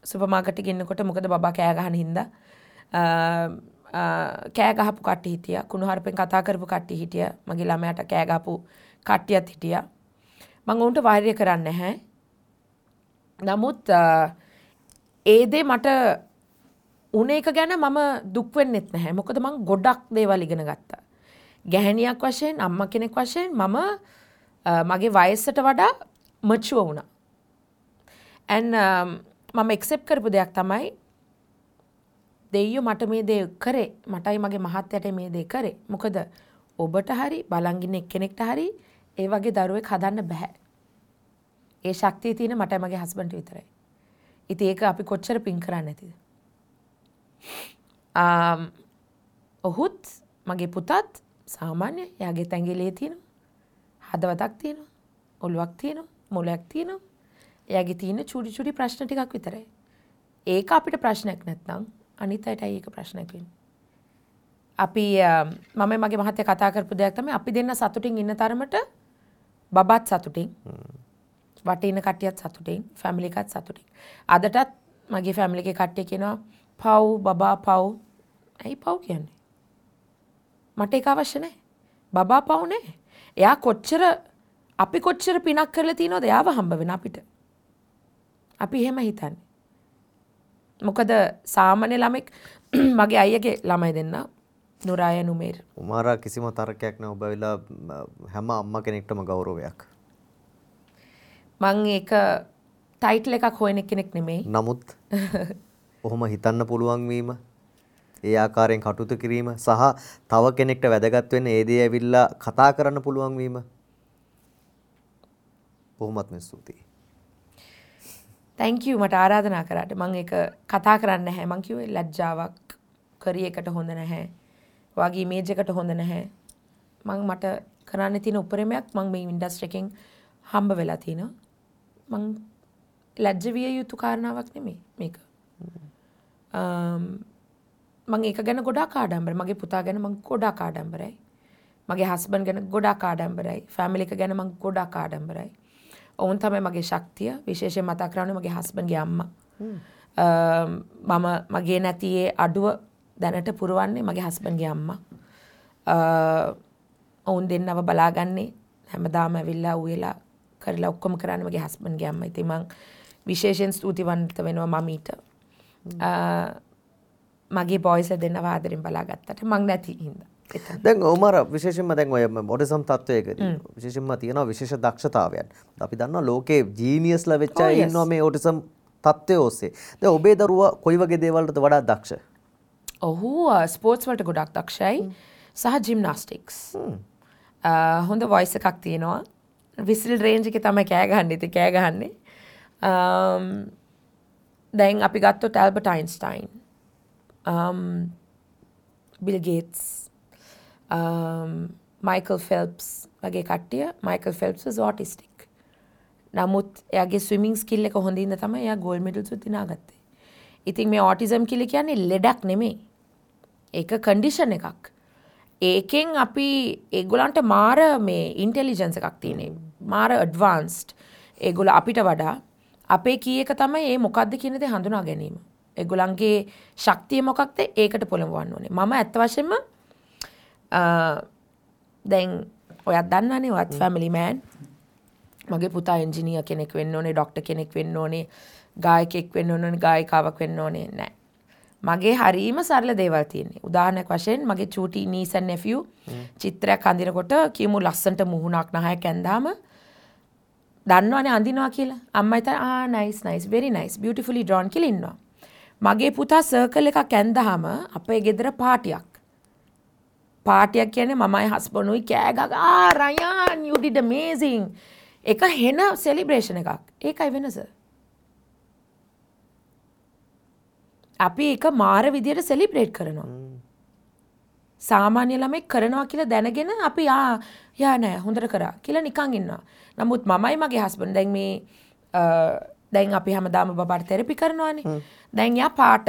සුපර් මාකට් එකේ ඉන්නකොට මොකද බබා කෑ ගහන හින්දා කෑ ගහපු කට්ටිය හිටියා. කුණුහරුපෙන් කතා කරපු කට්ටිය හිටියා. මගේ ළමයාට කෑ ගහපු කට්ටියත් හිටියා. මං ඔවුන්ට වෛරය කරන්නේ නැහැ. නමුත් ඒ දේ මට උන එක ගැන මම දුක් වෙන්නෙත් නැහැ. මොකද මං ගොඩක් දේවල් ඉගෙන ගත්තා. ගැහැණියක් වශයෙන්, අම්මා කෙනෙක් වශයෙන් මම මගේ වයසට වඩා මැචුවර් වුණා. and මම ඇක්සෙප්ට් කරපු දෙයක් තමයි දෙයියෝ මට මේ දේ කරේ. මටයි මගේ මහත්තයාට මේ දේ කරේ. මොකද ඔබට හරි බලන් ඉන්න එක්කෙනෙක්ට හරි ඒ වගේ දරුවෙක් හදන්න බෑ. ඒ ශක්තිය තියෙන මටයි මගේ හස්බන්ඩ්ට විතරයි. ඉතින් ඒක අපි කොච්චර පින් කරන්නේ නැතිද? ඔහුත් මගේ පුතත් සාමාන්‍ය එයාගේ ඇඟිලේ තියෙනවා. හදවතක් තියෙනවා. ඔළුවක් තියෙනවා. මොළයක් තියෙනවා. එයාගේ තියෙන චුඩි චුඩි ප්‍රශ්න ටිකක් විතරයි. ඒක අපිට ප්‍රශ්නයක් නැත්නම් අනිත් අයටයි ඒක ප්‍රශ්නයක් වෙන්නේ. අපි මම මගේ මහත්තයා කතා කරපු දෙයක් තමයි අපි දෙන්න සතුටින් ඉන්න තරමට බබත් සතුටින්, වටේ ඉන්න කට්ටියත් සතුටින්, ෆැමිලි එකත් සතුටින්. අදටත් මගේ ෆැමිලි එකේ කට්ටිය කියනවා පව් බබා පව්. ඇයි පව් කියන්නේ? මට ඒක අවශ්‍ය නැහැ. බබා පව් නෑ. එයා කොච්චර අපි කොච්චර පිනක් කරලා තියෙනවද එයාව හම්බ වෙන අපිට. අපි එහෙම හිතන්නේ. මොකද සාමාන්‍ය ළමෙක් මගේ අයියාගේ ළමයි දෙන්න නුරාය නුමේර්. උමාරා කිසිම තර්කයක් නෑ. ඔබ ඇවිල්ලා හැම අම්මා කෙනෙක්ටම ගෞරවයක්. මං ඒක ටයිටල් එකක් හොයන කෙනෙක් නෙමෙයි. නමුත් ඔහොම හිතන්න පුළුවන් වීම, ඒ ආකාරයෙන් කටයුතු කිරීම සහ තව කෙනෙක්ට වැදගත් වෙන ඒ දේ ඇවිල්ලා කතා කරන්න පුළුවන් වීම බොහොමත්ම ස්තුතියි. Thank you මට ආරාධනා කරාට. මං ඒක කතා කරන්න නැහැ. මං කිව්වේ ලැජ්ජාවක්, කරිය එකට හොඳ නැහැ. ඔයාගේ ඉමේජ් එකට හොඳ නැහැ. මං මට කරන්න තියෙන උපරිමයක් මං මේ ඉන්ඩස්ට්‍රි එකෙන් හම්බ වෙලා තිනවා. මං ලැජ්ජ විය යුතු කාරණාවක් නෙමෙයි මේක. මං ඒක ගැන ගොඩාක් ආඩම්බරයි. මගේ පුතා ගැන මං ගොඩාක් ආඩම්බරයි. මගේ හස්බන්ඩ් ගැන ගොඩාක් ආඩම්බරයි. ෆැමිලි එක ගැන මං ගොඩාක් ආඩම්බරයි. ඔවුන් තමයි මගේ ශක්තිය. විශේෂයෙන් මතක් කරන්නේ මගේ හස්බන්ඩ්ගේ අම්මා. මම මගේ නැති ඒ අඩුව දැනට පුරවන්නේ මගේ හස්බන්ඩ්ගේ අම්මා. ඔවුන් දෙන්නව බලාගන්නේ හැමදාම ඇවිල්ලා උයලා කරලා ඔක්කොම කරන්නේ මගේ හස්බන්ඩ්ගේ අම්මා. ඉතින් මං විශේෂයෙන් ස්තුතිවන්ත වෙනවා මමීට. මගේ බොයිස්ලා දෙන්නව ආදරෙන් බලාගත්තට මං නැති හින්දා. දැන් උමාර විශේෂයෙන්ම දැන් ඔය ඔටිසම් තත්වයකදී විශේෂයෙන්ම තියෙනවා විශේෂ දක්ෂතාවයන්. අපි දන්නවා ලෝකේ ජීනියස්ලා වෙච්ච අය ඉන්නවා මේ ඔටිසම් තත්වය ඔස්සේ. දැන් ඔබේ දරුවා කොයි වගේ දේවල් වලටද වඩා දක්ෂ? ඔහු ස්පෝර්ට්ස් වලට ගොඩක් දක්ෂයි සහ ජිම්නාස්ටික්ස්. හොඳ වොයිස් එකක් තියෙනවා. විසිල් රේන්ජ් එකේ තමයි කෑ ගහන්නේ. ඉතින් කෑ ගහන්නේ. දැන් අපි ගත්තොත් Albert Einstein, Bill Gates, Michael Phelps වගේ කට්ටිය. Michael Phelps was autistic. නමුත් එයාගේ ස්විමිං ස්කිල් එක හොඳින් තමයි එයා ගෝල්ඩ් මෙඩල්ස් උත් දිනාගත්තේ. ඉතින් මේ ඔටිසම් කියලා කියන්නේ ලෙඩක් නෙමෙයි. ඒක කන්ඩිෂන් එකක්. ඒකෙන් අපි ඒගොල්ලන්ට මාර මේ ඉන්ටෙලිජන්ස් එකක් තියෙන්නේ. මාර ඇඩ්වාන්ස්ඩ්. ඒගොල්ලෝ අපිට වඩා අපේ කී එක තමයි ඒ මොකද්ද කියන දේ හඳුනා ගැනීම. ඒගොල්ලන්ගේ ශක්තිය මොකක්ද ඒකට පොළඹවන්න ඕනේ. මම ඇත්ත වශයෙන්ම දැන් ඔයත් දන්නවනේ ඔයත් ෆැමිලි මෑන්. මගේ පුතා එන්ජිනියර් කෙනෙක් වෙන්න ඕනේ, ඩොක්ටර් කෙනෙක් වෙන්න ඕනේ, ගායකයෙක් වෙන්න ඕනේ, ගායිකාවක් වෙන්න ඕනේ නෑ. මගේ හරීම සරල දේවල් තියෙන්නේ. උදාහරණයක් වශයෙන් මගේ චූටි නීස් ඇන්ඩ් නෙෆියු චිත්‍රයක් අඳිනකොට කියමු ලස්සනට මුහුණක් නහයක් ඇඳාම දන්නවනේ අඳිනවා කියලා. අම්මයි තාත්තයි ආ nice nice very nice beautifully drawn කියලා ඉන්නවා. මගේ පුතා සර්කල් එකක් ඇඳාම අපේ ගෙදර පාටියක්. පාටියක් කියන්නේ මමයි හස්බන්ඩ්ුයි කෑ ගගා ආ රයන් you did amazing. ඒක හෙන සෙලිබ්‍රේෂන් එකක්. ඒකයි වෙනස. අපි ඒක මාර විදියට සෙලිබ්‍රේට් කරනවා. සාමාන්‍ය ළමෙක් කරනවා කියලා දැනගෙන අපි ආ යා නෑ හොඳට කරා කියලා නිකන් ඉන්නවා. නමුත් මමයි මගේ හස්බන්ඩ් දැන් මේ දැන් අපි හැමදාම බබාට තෙරපි කරනවානේ. දැන් යා පාට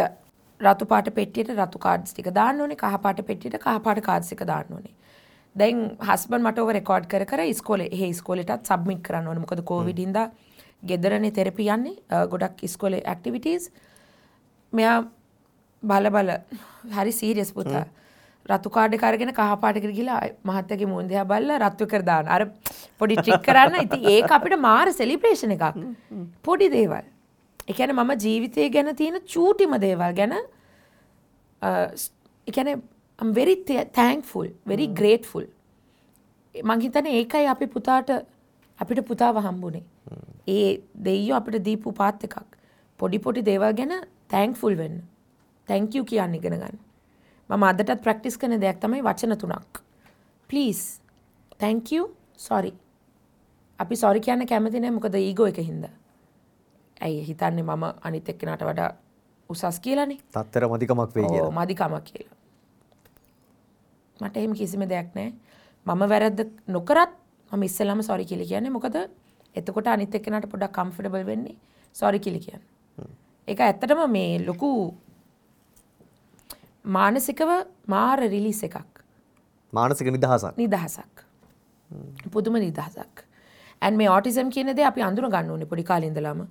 රතු පාට පෙට්ටියට රතු කාඩ්ස් ටික දාන්න ඕනේ, කහ පාට පෙට්ටියට කහ පාට කාඩ්ස් එක දාන්න ඕනේ. දැන් හස්බන්ඩ් මට ඕව රෙකෝඩ් කර කර ඉස්කෝලේ එහෙ ඉස්කෝලේටත් සබ්මිට් කරන්න ඕනේ. මොකද කෝවිඩ් හින්දා ගෙදරනේ තෙරපි යන්නේ ගොඩක් ඉස්කෝලේ ඇක්ටිවිටීස්. මෙයා බල බල හරි සීරියස් පුතා. රතු කාඩ් එක අරගෙන කහ පාට එකට ගිහලා මහත්තයාගේ මූණ දිහා බලලා රතු කර දාන. අර පොඩි ට්‍රික් කරන්න. ඉතින් ඒක අපිට මාර සෙලිබ්‍රේෂන් එකක්. පොඩි දේවල්. ඒ කියන්නේ මම ජීවිතය ගැන තියෙන චූටිම දේවල් ගැන ඒ කියන්නේ I'm very thankful, very grateful. මං හිතන්නේ ඒකයි අපි පුතාට අපිට පුතාව හම්බුනේ. ඒ දෙයියෝ අපිට දීපු පාත් එකක්. පොඩි පොඩි දේවල් ගැන thankful වෙන්න. Thank you කියන්න ඉගෙන ගන්න. මම අදටත් ප්‍රැක්ටිස් කරන දෙයක් තමයි වචන තුනක්. Please, thank you, sorry. අපි sorry කියන්න කැමති නෑ මොකද ඊගෝ එක හින්දා. ඇයි හිතන්නේ මම අනිත් එක්කෙනාට වඩා උසස් කියලානේ. තත්තර මදිකමක් වෙයි කියලා. ඔව් මදිකමක් කියලා. මට එහෙම කිසිම දෙයක් නෑ. මම වැරද්ද නොකරත් මම ඉස්සෙල්ලාම sorry කියලා කියන්නේ. මොකද එතකොට අනිත් එක්කෙනාට පොඩ්ඩක් කම්ෆර්ටබල් වෙන්නේ sorry කියලා කියන්න. ඒක ඇත්තටම මේ ලොකු මානසිකව මාර රිලීස් එකක්. මානසික නිදහසක්. නිදහසක්. පුදුම නිදහසක්. and මේ ඔටිසම් කියන දේ අපි අඳුන ගන්න ඕනේ පොඩි කාලේ ඉඳලාම.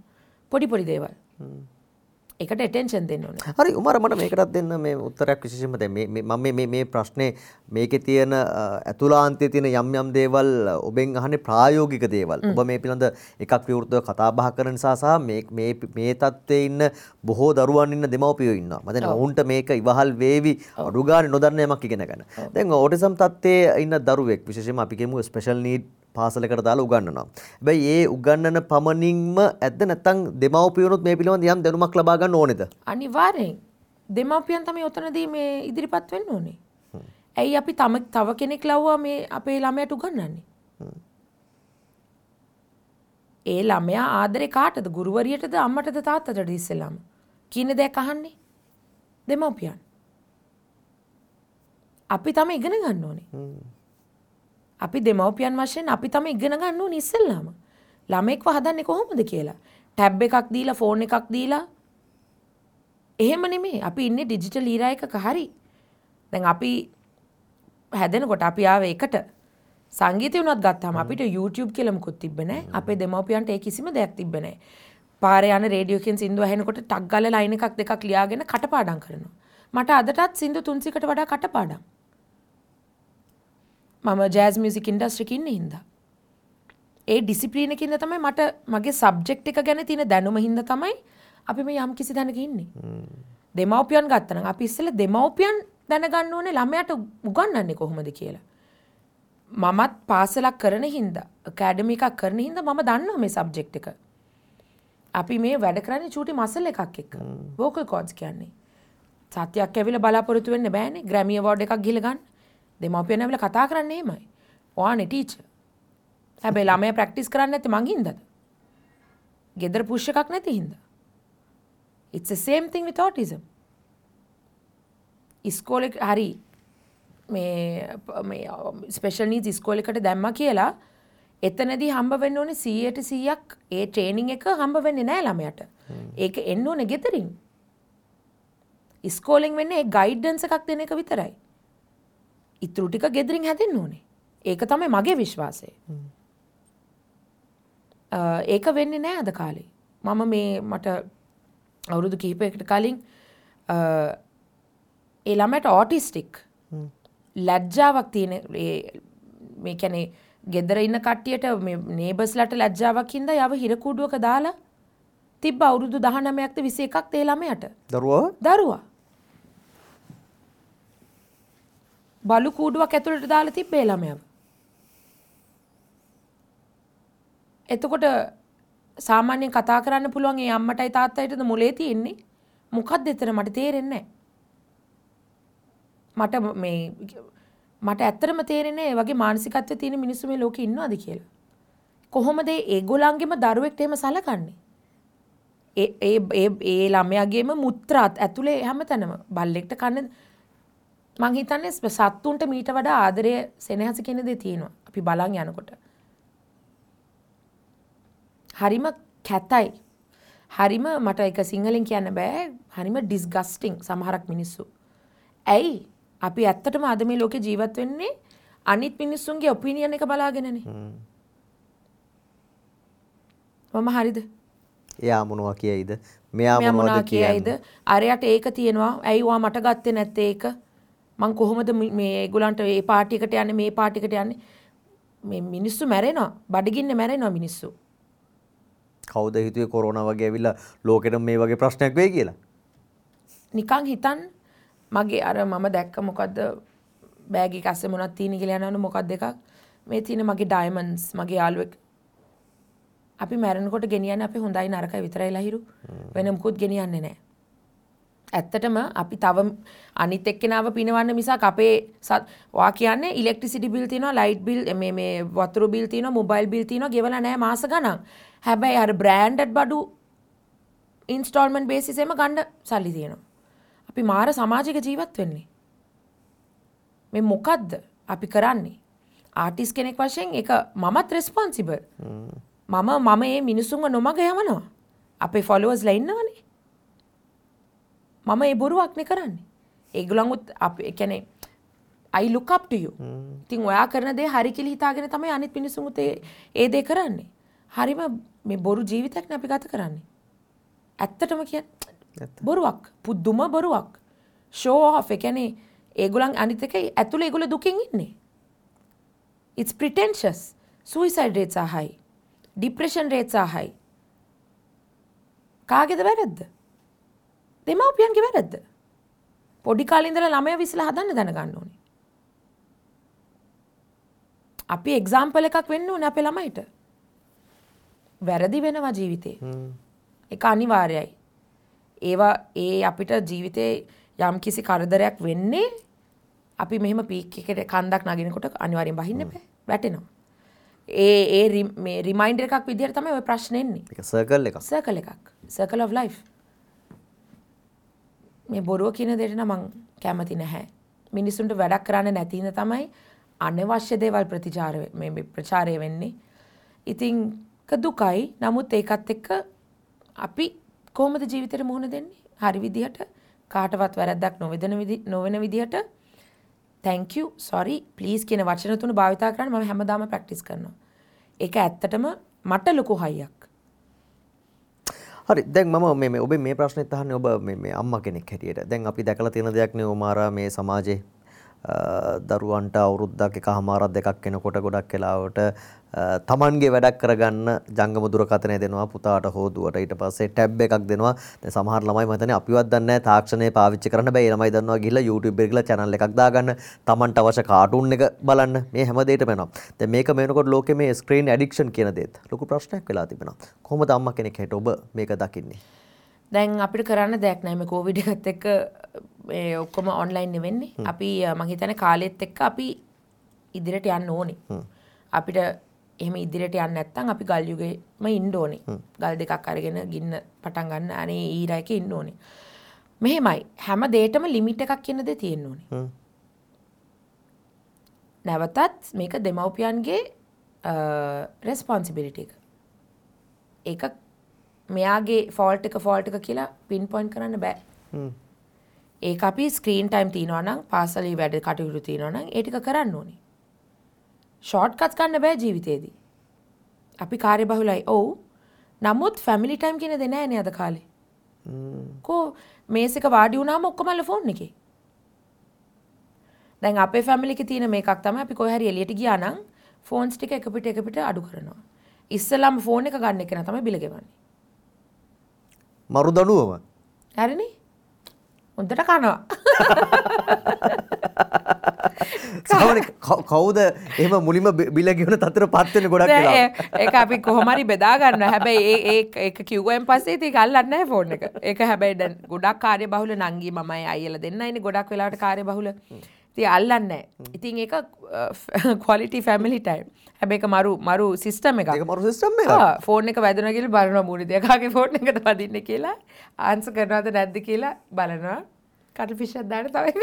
පොඩි පොඩි දේවල්. ඒකට ඇටෙන්ෂන් දෙන්න ඕනේ. හරි උමාර මට මේකටත් දෙන්න මේ උත්තරයක් විශේෂයෙන්ම දැන් මේ මම මේ මේ ප්‍රශ්නේ මේකේ තියෙන ඇතුළාන්තයේ තියෙන යම් යම් දේවල් ඔබෙන් අහන්නේ ප්‍රායෝගික දේවල්. ඔබ මේ පිළිබඳ එකක් විවෘතව කතා බහ කරන නිසා සහ මේ මේ මේ තත්ත්වයේ ඉන්න බොහෝ දරුවන් ඉන්න දෙමව්පියෝ ඉන්නවා. මම දැන් ඔවුන්ට මේක ඉවහල් වේවි අඩු ගානේ නොදන්න යමක් ඉගෙන ගන්න. දැන් ඔටිසම් තත්ත්වයේ ඉන්න දරුවෙක් විශේෂයෙන්ම අපි කියමු ස්පෙෂල් නීඩ් පාසලකට දාලා උගන්වනවා. හැබැයි ඒ උගන්වන පමණින්ම ඇද්ද නැත්නම් දෙමව්පියනුත් මේ පිළිබඳ යම් දැනුමක් ලබා ගන්න ඕනේද? අනිවාර්යෙන්. දෙමව්පියන් තමයි ඔතනදී මේ ඉදිරිපත් වෙන්න ඕනේ. ඇයි අපි තව කෙනෙක් ලව්වා මේ අපේ ළමයාට උගන්වන්නේ? ඒ ළමයා ආදරේ කාටද? ගුරුවරියටද අම්මටද තාත්තටද ඉස්සෙල්ලාම? කියන දෙයක් අහන්නේ දෙමව්පියන්. අපි තමයි ඉගෙන ගන්න ඕනේ. අපි දෙමව්පියන් වශයෙන් අපි තමයි ඉගෙන ගන්න ඕනේ ඉස්සෙල්ලාම. ළමෙක්ව හදන්නේ කොහොමද කියලා. ටැබ් එකක් දීලා ෆෝන් එකක් දීලා එහෙම නෙමෙයි. අපි ඉන්නේ ඩිජිටල් ඊරා එකක හරි. දැන් අපි හැදෙනකොට අපි ආවේ එකට. සංගීතය වුණත් ගත්තාම අපිට YouTube කියලා මොකුත් තිබ්බේ නෑ. අපේ දෙමව්පියන්ට ඒ කිසිම දෙයක් තිබ්බේ නෑ. පාරේ යන රේඩියෝ එකෙන් සින්දු ඇහෙනකොට ටක් ගාලා ලයින් එකක් දෙකක් ලියාගෙන කටපාඩම් කරනවා. මට අදටත් සින්දු 300කට වඩා කටපාඩම්. මම ජෑස් මියුසික් ඉන්ඩස්ට්‍රි එකේ ඉන්න හින්දා. ඒ ඩිසිප්ලින් එකකින්ද තමයි මට මගේ සබ්ජෙක්ට් එක ගැන තියෙන දැනුම හින්දා තමයි අපි මේ යම් කිසි දැනක ඉන්නේ. දෙමව්පියන් ගත්තා නම් අපි ඉස්සෙල්ලා දෙමව්පියන් දැනගන්න ඕනේ ළමයාට උගන්වන්නේ කොහොමද කියලා. මමත් පාසලක් කරන හින්දා, ඇකඩමි එකක් කරන හින්දා මම දන්නවා මේ සබ්ජෙක්ට් එක. අපි මේ වැඩ කරන්නේ චූටි මසල් එකක් එක්ක. වෝකල් කෝඩ්ස් කියන්නේ. සතියක් ඇවිල්ලා බලාපොරොත්තු වෙන්න බෑනේ. ග්‍රැමි අවෝඩ් එකක් ගිහලා ගන්න. දෙමව්පියන් ඇවිල්ලා කතා කරන්නේ එහෙමයි. ඔයානේ ටීචර්. හැබැයි ළමයා ප්‍රැක්ටිස් කරන්නේ නැත්තේ මං හින්දාද? ගෙදර පුෂ් එකක් නැති හින්දා. It's the same thing with autism. ඉස්කෝලේ හරි මේ මේ ස්පෙෂල් නීඩ්ස් ඉස්කෝලේකට දැම්මා කියලා එතනදී හම්බ වෙන්න ඕනේ 100ට 100ක් ඒ ට්‍රේනින් එක හම්බ වෙන්නේ නෑ ළමයාට. ඒක එන්න ඕනේ ගෙදරින්. ඉස්කෝලෙන් වෙන්නේ ඒ ගයිඩන්ස් එකක් දෙන එක විතරයි. ඉතුරු ටික ගෙදරින් හැදෙන්න ඕනේ. ඒක තමයි මගේ විශ්වාසය. ඒක වෙන්නේ නෑ අද කාලේ. මම මේ මට අවුරුදු කිහිපයකට කලින් ඒ ළමයට ඔටිස්ටික් ලැජ්ජාවක් තියෙන ඒ මේ කියන්නේ ගෙදර ඉන්න කට්ටියට මේ නේබර්ස්ලාට ලැජ්ජාවක් හින්දා යව හිර කූඩුවක දාලා තිබ්බ අවුරුදු 19ක්ද 21ක්ද ඒ ළමයාට. දරුවා. බලු කූඩුවක් ඇතුළට දාලා තිබ්බ ඒ ළමයාව. එතකොට සාමාන්‍යයෙන් කතා කරන්න පුළුවන් ඒ අම්මටයි තාත්තයිටද මොලේ තියෙන්නේ? මොකද්ද එතන මට තේරෙන්නේ නැහැ. මට මේ මට ඇත්තටම තේරෙන්නේ ඒ වගේ මානසිකත්වයේ තියෙන මිනිස්සු මේ ලෝකේ ඉන්නවද කියලා. කොහොමද ඒගොල්ලන්ගේම දරුවෙක්ට එහෙම සලකන්නේ? ඒ ඒ ඒ ඒ ළමයාගේම මුත්‍රාත් ඇතුලේ හැමතැනම බල්ලෙක්ට කන්න මං හිතන්නේ සත්තුන්ට මීට වඩා ආදරය සෙනෙහස කියන දේ තියෙනවා. අපි බලන් යනකොට. හරිම කැතයි. හරිම මට ඒක සිංහලෙන් කියන්න බෑ. හරිම ඩිස්ගස්ටිං සමහරක් මිනිස්සු. ඇයි? අපි ඇත්තටම අද මේ ලෝකේ ජීවත් වෙන්නේ අනිත් මිනිස්සුන්ගේ ඔපිනියන් එක බලාගෙනනේ. මම හරිද? එයා මොනවා කියයිද? මෙයා මොනවද කියයිද? අරයට ඒක තියෙනවා. ඇයි ඔයා මට ගත්තේ නැත්තේ ඒක? මං කොහොමද මේ ඒගොල්ලන්ට මේ පාටි එකට යන්නේ මේ පාටි එකට යන්නේ? මේ මිනිස්සු මැරෙනවා. බඩගින්නේ මැරෙනවා මිනිස්සු. කවුද හිතුවේ කොරෝනා වගේ ඇවිල්ලා ලෝකෙටම මේ වගේ ප්‍රශ්නයක් වෙයි කියලා? නිකන් හිතන්න මගේ අර මම දැක්ක මොකද්ද බෑග් එක අස්සේ මොනවද තියෙන කියලා යනවනේ මොකද්ද එකක් මේ තියෙන මගේ ඩයමන්ඩ්ස් මගේ යාළුවෙක් අපි මැරෙනකොට ගෙනියන්නේ අපි හොඳයි නරකයි විතරයි ලහිරු වෙන මොකුත් ගෙනියන්නේ නැහැ. ඇත්තටම අපි තව අනිත් එක්කෙනාව පිනවන්න මිසක් අපේ වා කියන්නේ ඉලෙක්ට්‍රිසිටි බිල් තියෙනවා ලයිට් බිල් මේ මේ වතුර බිල් තියෙනවා මොබයිල් බිල් තියෙනවා ගෙවලා නැහැ මාස ගණන්. හැබැයි අර බ්‍රෑන්ඩඩ් බඩු ඉන්ස්ටෝල්මන්ට් බේසිස් එකම ගන්න සල්ලි තියෙනවා. අපි මාර සමාජයක ජීවත් වෙන්නේ. මේ මොකද්ද අපි කරන්නේ? ආටිස්ට් කෙනෙක් වශයෙන් ඒක මමත් රෙස්පොන්සිබල්. මම මේ මිනිසුන්ව නොමග යවනවා. අපේ ෆලෝවර්ස්ලා ඉන්නවනේ. මම ඒ බොරුවක් නේ කරන්නේ. ඒගොල්ලන්වත් අපි ඒ කියන්නේ I look up to you. ඉතින් ඔයා කරන දේ හරි කියලා හිතාගෙන තමයි අනිත් මිනිසුන්ත් ඒ දේ කරන්නේ. හරිම මේ බොරු ජීවිතයක් නේ අපි ගත කරන්නේ. ඇත්තටම කියන්නේ බොරුවක්. පුදුම බොරුවක්. ෂෝ ඔෆ් ඒ කියන්නේ ඒගොල්ලන් අනිත් එක ඇතුලේ ඒගොල්ලෝ දුකින් ඉන්නේ. It's pretentious. Suicide rates are high. Depression rates are high. කාගේද වැරද්ද? දෙමව්පියන්ගේ වැරද්ද. පොඩි කාලේ ඉඳලා ළමයා විසලා හදන්න දැනගන්න ඕනේ. අපි එක්සැම්පල් එකක් වෙන්න ඕනේ අපේ ළමයිට. වැරදි වෙනවා ජීවිතේ. ඒක අනිවාර්යයි. ඒවා ඒ අපිට ජීවිතේ යම් කිසි කරදරයක් වෙන්නේ අපි මෙහෙම පීක් එකට කන්දක් නගිනකොට අනිවාර්යෙන් බහින්න බෑ. වැටෙනවා. ඒ ඒ මේ රිමයින්ඩර් එකක් විදිහට තමයි ඔය ප්‍රශ්නේ එන්නේ. ඒක සර්කල් එකක්. සර්කල් එකක්. Circle of life. මේ බොරුව කියන දෙයට නම් මං කැමති නැහැ. මිනිසුන්ට වැඩක් කරන්න නැති හින්දා තමයි අනවශ්‍ය දේවල් ප්‍රතිචාර මේ ප්‍රචාරය වෙන්නේ. ඉතින් දුකයි. නමුත් ඒකත් එක්ක අපි කොහොමද ජීවිතේට මුහුණ දෙන්නේ? හරි විදිහට කාටවත් වැරද්දක් නොවන විදිහට thank you, sorry, please කියන වචන තුන භාවිතා කරන්න මම හැමදාම ප්‍රැක්ටිස් කරනවා. ඒක ඇත්තටම මට ලොකු හයියක්. හරි, දැන් මම මේ ඔබේ මේ ප්‍රශ්නෙත් අහන්නේ ඔබ මේ අම්මා කෙනෙක් හැටියට. දැන් අපි දැකලා තියෙන දෙයක් නේ උමාරා, මේ සමාජයේ දරුවන්ට අවුරුද්දක් එකහමාරක් දෙකක් වෙනකොට ගොඩක් වෙලාවට තමන්ගේ වැඩක් කරගන්න ජංගම දුරකථනය දෙනවා පුතාට හෝ දුවට. ඊට පස්සේ ටැබ් එකක් දෙනවා. දැන් සමහර ළමයි මම හිතන්නේ අපිවත් දන්නේ නැහැ තාක්ෂණය පාවිච්චි කරන්න බෑ. ඒ ළමයි දන්නවා ගිහිල්ලා YouTube එකේ ගිහලා channel එකක් දාගන්න, තමන්ට අවශ්‍ය කාටුන් එක බලන්න, මේ හැම දෙයකටම යනවා. දැන් මේක මේ වෙනකොට ලෝකේ මේ ස්ක්‍රීන් ඇඩික්ෂන් කියන දේත් ලොකු ප්‍රශ්නයක් වෙලා තිබෙනවා. කොහොමද අම්මා කෙනෙක් හැටියට ඔබ මේක දකින්නේ? දැන් අපිට කරන්න දෙයක් නැහැ මේ කොවිඩ් එකත් එක්ක මේ ඔක්කොම ඔන්ලයින් නෙවෙන්නේ. අපි මං හිතන්නේ කාලෙත් එක්ක අපි ඉදිරියට යන්න ඕනේ. අපිට එහෙම ඉදිරියට යන්න නැත්නම් අපි ගල් යුගෙම ඉන්න ඕනේ. ගල් දෙකක් අරගෙන ගින්න පටන් ගන්න අනේ ඊරා එකේ ඉන්න ඕනේ. මෙහෙමයි, හැම දෙයකටම ලිමිට් එකක් කියන දේ තියෙන්න ඕනේ. නැවතත් මේක දෙමව්පියන්ගේ රෙස්පොන්සිබිලිටි එක. ඒක මෙයාගේ ෆෝල්ට් එක කියලා පින් පොයින්ට් කරන්න බෑ. ඒක අපි ස්ක්‍රීන් ටයිම් තියනවා නම්, පාසලේ වැඩ කටයුතු තියනවා නම් ඒ ටික කරන්න ඕනේ. ෂෝට් කට්ස් ගන්න බෑ ජීවිතේදී. අපි කාර්යබහුලයි. ඔව්. නමුත් ෆැමිලි ටයිම් කියන දේ නෑ නේ අද කාලේ. කෝ මේස් එක වාඩි වුණාම ඔක්කොමල ෆෝන් එකේ. දැන් අපේ ෆැමිලි එකේ තියෙන මේකක් තමයි අපි කොහේ හරි එළියට ගියා නම් ෆෝන්ස් ටික එක පිට එක පිට අඩු කරනවා. ඉස්සෙල්ලාම ෆෝන් එක ගන්න එක නා තමයි බිල ගෙවන්නේ. මරු දඬුවම. හරිනේ? හොඳට කනවා. සාමාන්‍ය කවුද එහෙම මුලින්ම බිල ගෙවන තත්ත්වයට පත් වෙන්නේ ගොඩක් වෙලාවට? ඒක අපි කොහොම හරි බෙදා ගන්නවා. හැබැයි ඒ ඒක කිව්වෙන් පස්සේ ඉතින් ඒක අල්ලන්නේ නැහැ ෆෝන් එක. ඒක හැබැයි දැන් ගොඩක් කාර්යබහුල නංගි මමයි අයියලා දෙන්නයිනේ ගොඩක් වෙලාවට කාර්යබහුල. ඉතින් අල්ලන්නේ නැහැ. ඉතින් ඒක ක්වොලිටි ෆැමිලි ටයිම්. හැබැයි ඒක මරු මරු සිස්ටම් එකක්. ඒක මරු සිස්ටම් එකක්. ආ ෆෝන් එක වැදුනා කියලා බලනවා මූණේ දිහා. කාගේ ෆෝන් එකද වදින්නේ කියලා ආන්සර් කරනවද නැද්ද කියලා බලනවා. කටු ෆිෂ් එකක් දාන්න තව එකක්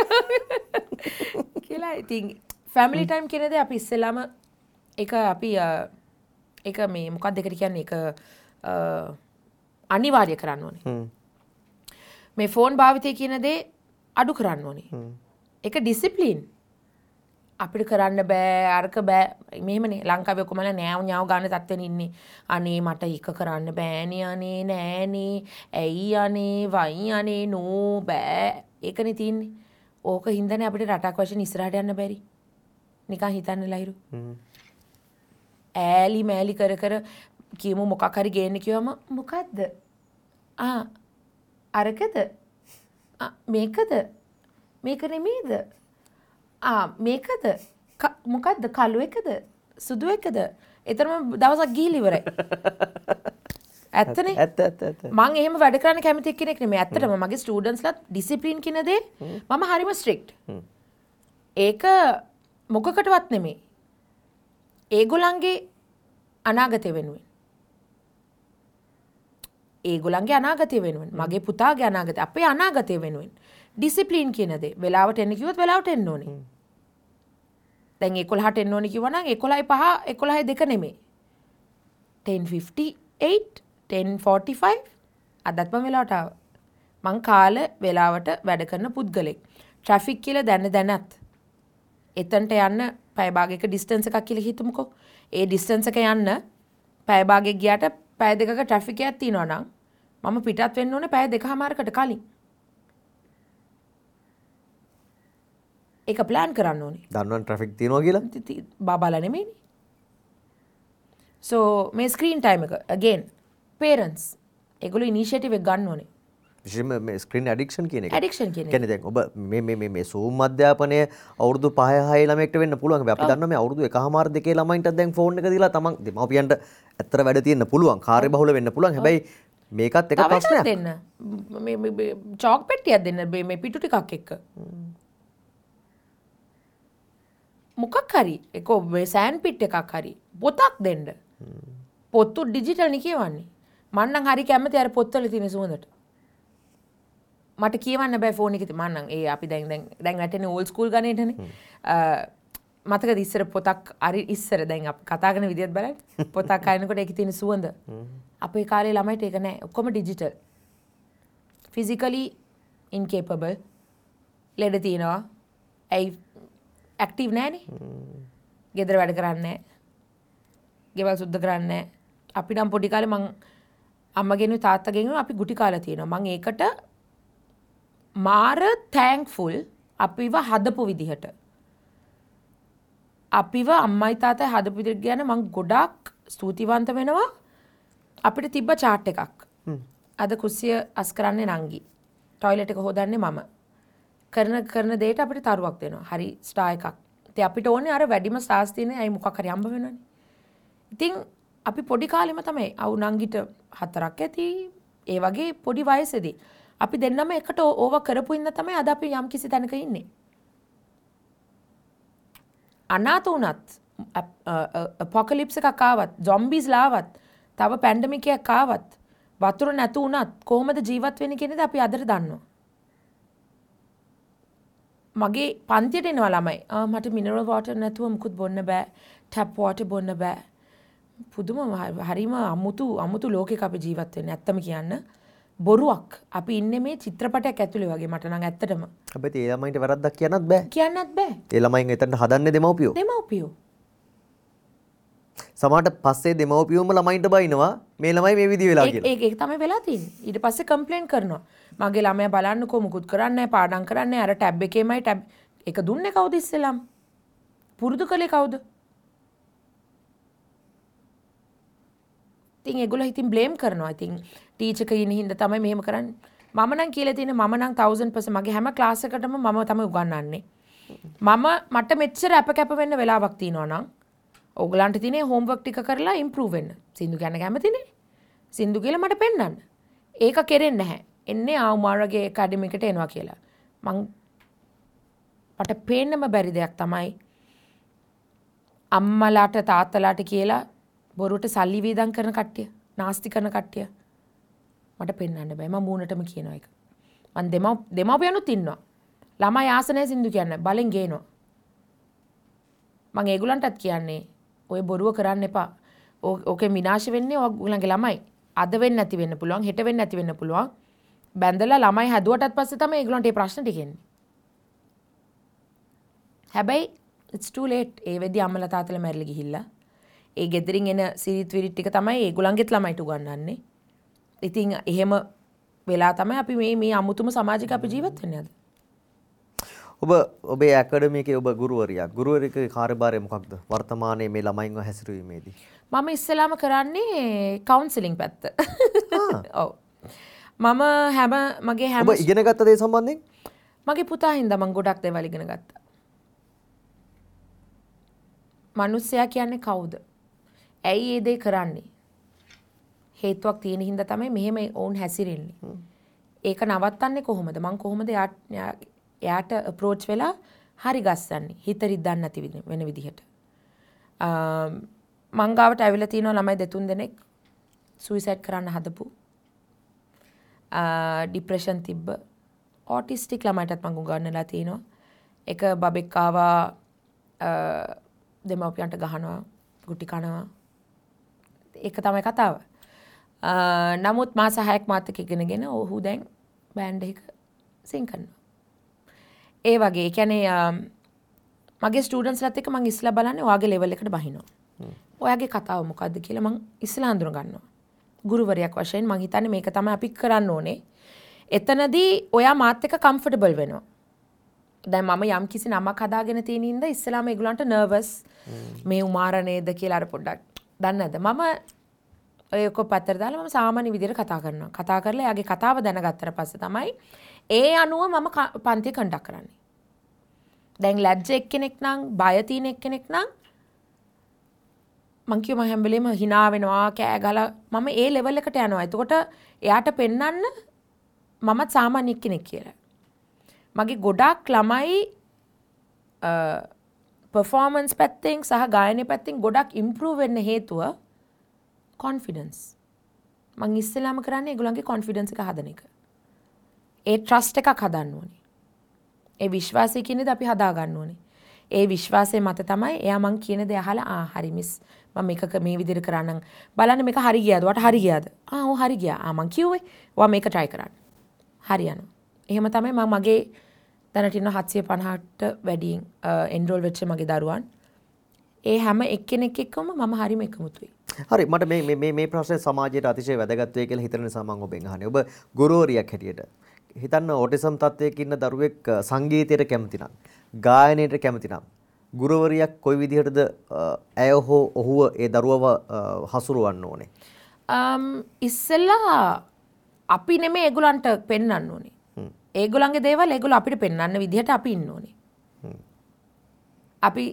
කියලා. ඉතින් ෆැමිලි ටයිම් කියන දේ අපි ඉස්සෙල්ලාම ඒක අපි ඒක මේ මොකක්ද ඒකට කියන්නේ, ඒක අනිවාර්ය කරන්න ඕනේ. මේ ෆෝන් භාවිතය කියන දේ අඩු කරන්න ඕනේ. ඒක ඩිසිප්ලින්. අපිට කරන්න බෑ, අරක බෑ. මෙහෙමනේ ලංකාවේ ඔක්කොමලා නෑව් ඥාව් ගන්න තත්ත්වෙන ඉන්නේ. අනේ මට ඒක කරන්න බෑනේ, අනේ නෑනේ, ඇයි අනේ, වයි අනේ, නෝ බෑ. ඒකනේ තියෙන්නේ. ඕක හින්දානේ අපිට රටක් වශයෙන් ඉස්සරහට යන්න බැරි. නිකන් හිතන්න ලහිරු. ඈලි මෑලි කර කර කියමු මොකක් හරි ගේන්න කිව්වම මොකද්ද? ආ අරකද? ආ මේකද? මේක නෙමෙයිද? ආ මේකද? මොකද්ද? කළු එකද? සුදු එකද? එතරම් දවසක් ගිහිල්ලා ඉවරයි. ඇත්තනේ? ඇත්ත ඇත්ත ඇත්ත. මං එහෙම වැඩ කරන්න කැමති කෙනෙක් නෙමෙයි. ඇත්තටම මගේ ස්ටුඩන්ට්ස්ලාත් ඩිසිප්ලින් කියන දේ මම හරිම ස්ට්‍රික්ට්. ඒක මොකකටවත් නෙමෙයි. ඒගොල්ලන්ගේ අනාගතය වෙනුවෙන්. ඒගොල්ලන්ගේ අනාගතය වෙනුවෙන්, මගේ පුතාගේ අනාගතය, අපේ අනාගතය වෙනුවෙන්. ඩිසිප්ලින් කියන දේ වෙලාවට එන්න කිව්වොත් වෙලාවට එන්න ඕනේ. දැන් 11ට එන්න ඕනේ කිව්වා නම් 11:05 11:02 නෙමෙයි. 10:58 10:45 අදත් මම වෙලාවට ආවා. මං කාල වෙලාවට වැඩ කරන පුද්ගලෙක්. ට්‍රැෆික් කියලා දැන දැනත් එතනට යන්න පැය භාගයක ඩිස්ටන්ස් එකක් කියලා හිතමුකෝ. ඒ ඩිස්ටන්ස් එක යන්න පැය භාගයක් ගියාට පැය දෙකක ට්‍රැෆික් එකක් තියෙනවා නම් මම පිටත් වෙන්න ඕනේ පැය දෙකමාරකට කලින්. ඒක ප්ලෑන් කරන්න ඕනේ. දන්නවනේ ට්‍රැෆික් තියෙනවා කියලා. බබාලා නෙමෙයිනේ. සෝ මේ ස්ක්‍රීන් ටයිම් එක again parents ඒගොල්ලෝ ඉනිෂියේටිව් එක ගන්න ඕනේ. විශේෂයෙන්ම මේ ස්ක්‍රීන් ඇඩික්ෂන් කියන එක. ඇඩික්ෂන් කියන එක. කියන්නේ දැන් ඔබ මේ මේ මේ මේ Zoom අධ්‍යාපනය අවුරුදු 5 6 ළමයෙක්ට වෙන්න පුළුවන්. හැබැයි අපි දන්නවා මේ අවුරුදු 1.5 2 ළමයින්ටත් දැන් ෆෝන් එක දීලා තමන් දෙමව්පියන්ට ඇත්තට වැඩ තියෙන්න පුළුවන්. කාර්යබහුල වෙන්න පුළුවන්. හැබැයි මේකත් එක ප්‍රශ්නයක්. දෙන්න. මේ මේ චෝක් පෙට්ටියක් දෙන්න මේ පිටු ටිකක් එක්ක. මොකක් හරි ඒක මේ සෑන්ඩ් පිට් එකක් හරි පොතක් දෙන්න. පොතු ඩිජිටල් නේ කියවන්නේ. මං නම් හරි කැමති අර පොත්වල තියෙන සුවඳට. මට කියවන්න බෑ ෆෝන් එකේ. මං නම් ඒ අපි දැන් දැන් දැන් වැටෙන්නේ ඕල්ඩ් ස්කූල් ගණේටනේ. මතකද ඉස්සර පොතක් හරි ඉස්සර දැන් අපි කතා කරන විදියත් බලන්න. පොතක් අරනකොට ඒකේ තියෙන සුවඳ. අපේ කාලේ ළමයිට ඒක නෑ. ඔක්කොම ඩිජිටල්. ෆිසිකලි ඉන්කේපබල්. ලෙඩ තියෙනවා. ඇයි ඇක්ටිව් නෑනේ. ගෙදර වැඩ කරන්නේ නෑ. ගෙවල් සුද්ධ කරන්නේ නෑ. අපි නම් පොඩි කාලේ මං අම්මගෙනුයි තාත්තගෙනුයි අපි ගුටි කාලා තියෙනවා. මං ඒකට මාර තැන්ක්ෆුල් අපිව හදපු විදිහට. අපිව අම්මයි තාත්තයි හදපු විදිහට ගැන මං ගොඩාක් ස්තුතිවන්ත වෙනවා. අපිට තිබ්බ චාට් එකක්. අද කුස්සිය අස් කරන්නේ නංගි. ටොයිලට් එක හොදන්නේ මම. කරන කරන දෙයට අපිට තරුවක් දෙනවා. හරි ස්ටාර් එකක්. ඉතින් අපිට ඕනේ අර වැඩිම ස්ටාර්ස් තියෙන අය මොකක් හරි හම්බ වෙනවනේ. ඉතින් අපි පොඩි කාලෙම තමයි අවු නංගිට 4ක් ඇති. ඒ වගේ පොඩි වයසේදී අපි දෙන්නම එකට ඕව කරපු ඉන්න තමයි අද අපි යම් කිසි තැනක ඉන්නේ. අනාථ වුණත්, අපොකලිප්ස් එකක් ආවත්, සොම්බීස්ලා ආවත්, තව පැන්ඩමික් එකක් ආවත්, වතුර නැතු වුණත් කොහොමද ජීවත් වෙන්නේ කියන දේ අපි අදට දන්නවා. මගේ පන්තියට එනවා ළමයි. මට මිනරල් වෝටර් නැතුව මුකුත් බොන්න බෑ. ටැප් වෝටර් බොන්න බෑ. පුදුම හරිම අමුතු ලෝකයක අපි ජීවත් වෙන්නේ. ඇත්තම කියන්න බොරුවක්. අපි ඉන්නේ මේ චිත්‍රපටයක් ඇතුලේ වගේ මට නම් ඇත්තටම. හැබැයි ඒ ළමයින්ට වැරද්දක් කියන්නත් බෑ. කියන්නත් බෑ. ඒ ළමයින් එතනට හදන්නේ දෙමව්පියෝ. දෙමව්පියෝ. සමහරට පස්සේ දෙමව්පියෝම ළමයින්ට බයිනවා මේ ළමයි මේ විදිහ වෙලා කියලා. ඒක තමයි වෙලා තියෙන්නේ. ඊට පස්සේ කම්ප්ලේන් කරනවා. මගේ ළමයා බලන්නකෝ මුකුත් කරන්නේ නැහැ, පාඩම් කරන්නේ නැහැ. අර ටැබ් එකේමයි ටැබ් එක දුන්නේ කවුද ඉස්සෙල්ලාම? පුරුදු කළේ කවුද? ඉතින් ඒගොල්ලෝ ඉතින් බ්ලේම් කරනවා. ඉතින් ටීචර් කෙනෙක් හින්දා තමයි මෙහෙම කරන්නේ. මම නම් කියලා තියෙන්නේ මම නම් 1000% මගේ හැම ක්ලාස් එකටම මම තමයි උගන්වන්නේ. මම මට මෙච්චර අප කැප වෙන්න වෙලාවක් තියෙනවා නම් ඕගලන්ට තියෙන්නේ හෝම්වර්ක් ටික කරලා ඉම්ප්‍රූව් වෙන්න. සින්දු කියන්න කැමතිනේ. සින්දු කියලා මට පෙන්වන්න. ඒක කෙරෙන්නේ නැහැ. එන්නේ ආ උමාරගේ ඇකඩමි එකට එනවා කියලා. මං මට පේන්නම බැරි දෙයක් තමයි අම්මලාට තාත්තලාට කියලා බොරුවට සල්ලි වේදම් කරන කට්ටිය, නාස්ති කරන කට්ටිය මට පෙන්වන්න බෑ. මම මූණටම කියනවා ඒක. මං දෙමව්පියනුත් ඉන්නවා. ළමයි ආස නැහැ සින්දු කියන්න. බලෙන් ගේනවා. මං ඒගොල්ලන්ටත් කියන්නේ ඔය බොරුව කරන්න එපා. ඕකෙන් විනාශ වෙන්නේ ඔයගොල්ලන්ගේ ළමයි. අද වෙන්නේ නැති වෙන්න පුළුවන්, හෙට වෙන්නේ නැති වෙන්න පුළුවන්. බැඳලා ළමයි හැදුවටත් පස්සේ තමයි ඒගොල්ලන්ට මේ ප්‍රශ්න ටික එන්නේ. හැබැයි it's too late. ඒ වෙද්දි අම්මලා තාත්තලා මැරිලා ගිහිල්ලා. ඒ ගෙදරින් එන සිරිත් විරිත් ටික තමයි ඒගොල්ලන්ගෙත් ළමයිට උගන්වන්නේ. ඉතින් එහෙම වෙලා තමයි අපි මේ මේ අමුතුම සමාජයක අපි ජීවත් වෙන්නේ අද. ඔබ ඔබේ ඇකඩමි එකේ ඔබ ගුරුවරියක්. ගුරුවරයෙකුගේ කාර්යභාරය මොකක්ද? වර්තමානයේ මේ ළමයින්ව හැසිරවීමේදී. මම ඉස්සෙල්ලාම කරන්නේ කවුන්සලින් පැත්ත. ඔව්. මම හැම මගේ හැම ඔබ ඉගෙන ගත්ත දේ සම්බන්ධයෙන්? මගේ පුතා හින්දා මම ගොඩක් දේවල් ඉගෙන ගත්තා. මිනිස්සයා කියන්නේ කවුද? ඇයි ඒ දේ කරන්නේ? හේතුවක් තියෙන හින්දා තමයි මෙහෙම ඔවුන් හැසිරෙන්නේ. ඒක නවත්තන්නේ කොහොමද? මං කොහොමද එයාට අප්‍රෝච් වෙලා හරි ගස්සන්නේ? හිත රිද්දන්න නැති වෙන විදිහට. මං ගාවට ඇවිල්ලා තියෙනවා ළමයි දෙතුන් දෙනෙක් සුයිසයිඩ් කරන්න හදපු. ඩිප්‍රෙෂන් තිබ්බ ඔටිස්ටික් ළමයිටත් මං උගන්වලා තියෙනවා. එක බබෙක් ආවා දෙමව්පියන්ට ගහනවා, ගුටි කනවා. ඒක තමයි කතාව. නමුත් මාස 6ක් මාත් එක්ක ඉගෙනගෙන ඔහු දැන් බෑන්ඩ් එක සිං කරනවා. ඒ වගේ ඒ කියන්නේ මගේ ස්ටුඩන්ට්ස්ලාත් එක්ක මං ඉස්සලා බලන්නේ ඔයාගේ ලෙවල් එකට බහිනවා. ඔයාගේ කතාව මොකද්ද කියලා මං ඉස්සලා හඳුන ගන්නවා. ගුරුවරයෙක් වශයෙන් මං හිතන්නේ මේක තමයි අපි කරන්න ඕනේ. එතනදී ඔයා මාත් එක්ක කම්ෆර්ටබල් වෙනවා. දැන් මම යම් කිසි නමක් හදාගෙන තියෙන හින්දා ඉස්සලාම ඒගොල්ලන්ට නර්වස් මේ උමාර නේද කියලා අර පොඩ්ඩක් දන්නේ නැද්ද? මම ඔය ඔක්කොම පැත්තට දාලා මම සාමාන්‍ය විදිහට කතා කරනවා. කතා කරලා එයාගේ කතාව දැනගත්තට පස්සේ තමයි ඒ අනුව මම පන්තිය කන්ඩක්ට් කරන්නේ. දැන් ලැජ්ජ එක්කෙනෙක් නම් බය තියෙන එක්කෙනෙක් නම් මං කිව්ව මම හැම වෙලේම hina වෙනවා කෑ ගහලා මම ඒ ලෙවල් එකට යනවා. එතකොට එයාට පෙන්වන්න මමත් සාමාන්‍ය එක්කෙනෙක් කියලා. මගේ ගොඩාක් ළමයි පර්ෆෝමන්ස් පැත්තෙන් සහ ගායනය පැත්තෙන් ගොඩක් ඉම්ප්‍රූව් වෙන්න හේතුව කොන්ෆිඩන්ස්. මං ඉස්සෙල්ලාම කරන්නේ ඒගොල්ලන්ගේ කොන්ෆිඩන්ස් එක හදන එක. ඒ ට්‍රස්ට් එකක් හදන්න ඕනේ. ඒ විශ්වාසය කියන දේ අපි හදා ගන්න ඕනේ. ඒ විශ්වාසය මත තමයි එයා මං කියන දේ අහලා ආ හරි මිස් මම මේක මේ විදිහට කරන්නම් බලන්න මේක හරි ගියාද? ඔයාට හරි ගියාද? ආ ඔව් හරි ගියා. ආ මං කිව්වේ ඔයා මේක try කරන්න. හරි යනවා. එහෙම තමයි මම මගේ දැනට ඉන්න 750ට වැඩියෙන් එන්රෝල් වෙච්ච මගේ දරුවන්. ඒ හැම එක්කෙනෙක් එක්කම මම හරිම එකමුතුයි. හරි, මට මේ මේ මේ ප්‍රශ්නේ සමාජයට අතිශය වැදගත් වෙයි කියලා හිතන නිසා මම ඔබෙන් අහන්නේ. ඔබ ගුරුවරියක් හැටියට හිතන්න, ඔටිසම් තත්ත්වයක ඉන්න දරුවෙක් සංගීතයට කැමති නම්, ගායනයට කැමති නම්, ගුරුවරියක් කොයි විදිහටද ඇය හෝ ඔහුව ඒ දරුවව හසුරවන්න ඕනේ? ඉස්සෙල්ලා අපි නෙමෙයි ඒගොල්ලන්ට පෙන්වන්න ඕනේ. ඒගොල්ලන්ගේ දේවල් ඒගොල්ලෝ අපිට පෙන්වන්න විදිහට අපි ඉන්න ඕනේ. අපි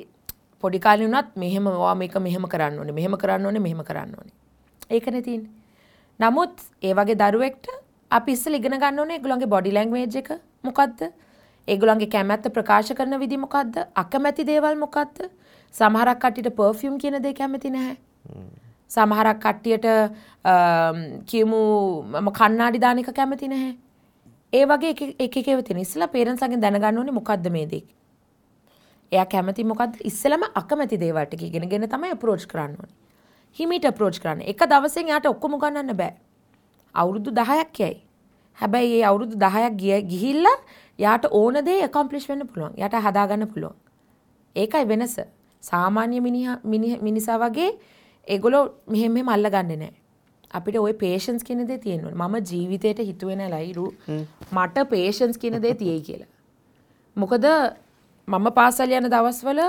පොඩි කාලේ වුණත් මෙහෙම ඔයා මේක මෙහෙම කරන්න ඕනේ, මෙහෙම කරන්න ඕනේ, මෙහෙම කරන්න ඕනේ. ඒකනේ තියෙන්නේ. නමුත් ඒ වගේ දරුවෙක්ට අපි ඉස්සෙල්ලා ඉගෙන ගන්න ඕනේ ඒගොල්ලන්ගේ බොඩි ලැන්ග්වේජ් එක මොකද්ද? ඒගොල්ලන්ගේ කැමැත්ත ප්‍රකාශ කරන විදි මොකද්ද? අකමැති දේවල් මොකද්ද? සමහරක් කට්ටියට පර්ෆියුම් කියන දේ කැමති නැහැ. සමහරක් කට්ටියට කියමු මම කණ්ණාඩි දාන එක කැමති නැහැ. ඒ වගේ එක එක ඒවා තියෙන. ඉස්සෙල්ලා පේරන්ට්ස් ලාගෙන් දැනගන්න ඕනේ මොකද්ද මේ දේ. එයා කැමති මොකද්ද? ඉස්සෙල්ලාම අකමැති දේවල් ටික ඉගෙනගෙන තමයි අප්‍රෝච් කරන්න ඕනේ. හිමීට අප්‍රෝච් කරන්න. එක දවසෙන් එයාට ඔක්කොම උගන්වන්න බෑ. අවුරුදු 10ක් යයි. හැබැයි ඒ අවුරුදු 10ක් ගිහිල්ලා යාට ඕන දේ ඇකම්ප්ලිෂ් වෙන්න පුළුවන්. යාට හදාගන්න පුළුවන්. ඒකයි වෙනස. සාමාන්‍ය මිනිසා වගේ ඒගොල්ලෝ මෙහෙම මෙහෙම අල්ලගන්නේ නැහැ. අපිට ওই පේෂන්ස් කියන දේ තියෙන්න ඕනේ. මම ජීවිතේට හිතුවේ නෑ ලයිරු මට පේෂන්ස් කියන දේ තියෙයි කියලා. මොකද මම පාසල් යන දවස්වල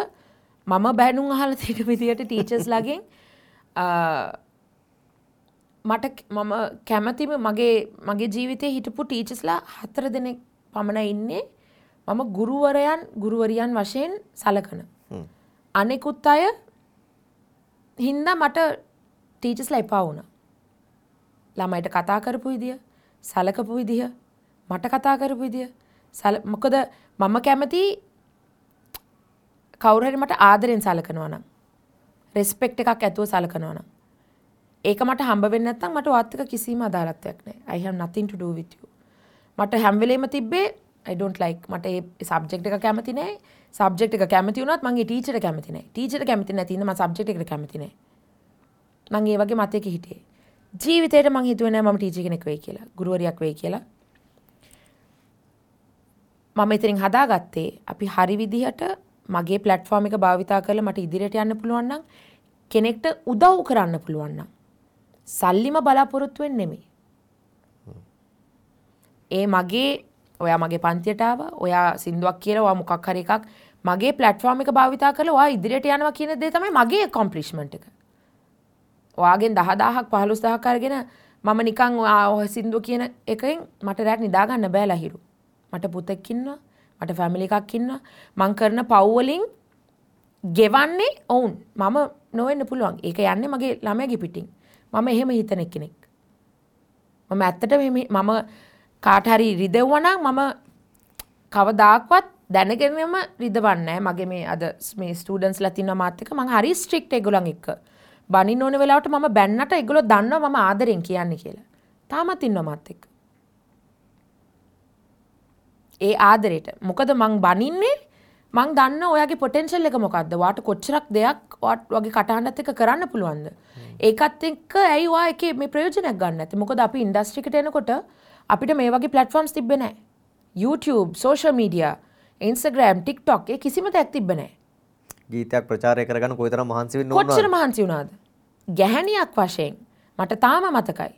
මම බැනුම් අහලා තියෙන විදියට ටීචර්ස් ලාගෙන් මට මම කැමතිම මගේ ජීවිතේ හිටපු ටීචර්ස්ලා 4 දෙනෙක් පමණ ඉන්නේ මම ගුරුවරියන් වශයෙන් සලකන. අනෙකුත් අය හින්දා මට ටීචර්ස්ලා එපා වුණා. ළමයිට කතා කරපු විදිය, සලකපු විදිය, මට කතා කරපු විදිය, මොකද මම කැමති කවුරු හරි මට ආදරෙන් සලකනවා නම්, රෙස්පෙක්ට් එකක් ඇතුව සලකනවා නම්, ඒක මට හම්බ වෙන්නේ නැත්නම් මට ඔයත් එක්ක කිසිම අදාළත්වයක් නැහැ. I have nothing to do with you. මට හැම වෙලේම තිබ්බේ I don't like, මට ඒ සබ්ජෙක්ට් එක කැමති නෑ. සබ්ජෙක්ට් එක කැමති වුණත් මං ඒ ටීචර්ට කැමති නෑ. ටීචර්ට කැමති නැති හින්දා මං සබ්ජෙක්ට් එකට කැමති නෑ. මං ඒ වගේ මතයක හිටියේ. ජීවිතේට මං හිතුවේ නෑ මම ටීචර් කෙනෙක් වෙයි කියලා, ගුරුවරියක් වෙයි කියලා. මම එතනින් හදාගත්තේ අපි හරි විදිහට මගේ ප්ලැට්ෆෝම් එක භාවිතා කරලා මට ඉදිරියට යන්න පුළුවන් නම්, කෙනෙක්ට උදව් කරන්න පුළුවන් නම්, සල්ලිම බලාපොරොත්තු වෙන්නේ නෙමෙයි. ඒ මගේ ඔයා මගේ පන්තියට ආවා, ඔයා සින්දුවක් කියලා, ඔයා මොකක් හරි එකක් මගේ ප්ලැට්ෆෝම් එක භාවිතා කරලා ඔයා ඉදිරියට යනවා කියන දේ තමයි මගේ ඇකම්ප්ලිෂ්මන්ට් එක. ඔයාගෙන් 10,000ක් 15,000ක් අරගෙන මම නිකන් ඔයා සින්දුව කියන එකෙන් මට රැට නිදා ගන්න බෑ ලහිරු. මට පුතෙක් ඉන්නවා, මට ෆැමිලි එකක් ඉන්නවා. මං කරන පව් වලින් ගෙවන්නේ ඔවුන්. මම නොවෙන්න පුළුවන්. ඒක යන්නේ මගේ ළමයාගේ පිටින්. මම එහෙම හිතන කෙනෙක්. මම ඇත්තටම මම කාට හරි රිදෙව්වා නම් මම කවදාක්වත් දැනගෙනම රිදවන්නේ නැහැ. මගේ මේ අද මේ ස්ටුඩන්ට්ස්ලා තින්නවා මාත් එක්ක. මං හරි ස්ට්‍රික්ට් ඒගොල්ලන් එක්ක. බනින්න ඕන වෙලාවට මම බැන්නට ඒගොල්ලෝ දන්නවා මම ආදරෙන් කියන්නේ කියලා. තාමත් ඉන්නවා මාත් එක්ක. ඒ ආදරේට. මොකද මං බනින්නේ මං දන්න ඔයාගේ පොටෙන්ෂල් එක මොකද්ද? ඔයාට කොච්චරක් දෙයක් ඔයාගේ කටහඬත් එක්ක කරන්න පුළුවන්ද? ඒකත් එක්ක ඇයි ඔයා ඒකේ මේ ප්‍රයෝජනයක් ගන්න නැත්තේ? මොකද අපි ඉන්ඩස්ට්‍රි එකට එනකොට අපිට මේ වගේ ප්ලැට්ෆෝම්ස් තිබ්බේ නැහැ. YouTube, social media, Instagram, TikTok ඒ කිසිම දෙයක් තිබ්බේ නැහැ. ගීතයක් ප්‍රචාරය කරගන්න කොයිතරම් මහන්සි වෙන්න ඕනද? කොච්චර මහන්සි වුණාද? ගැහැණියක් වශයෙන් මට තාම මතකයි.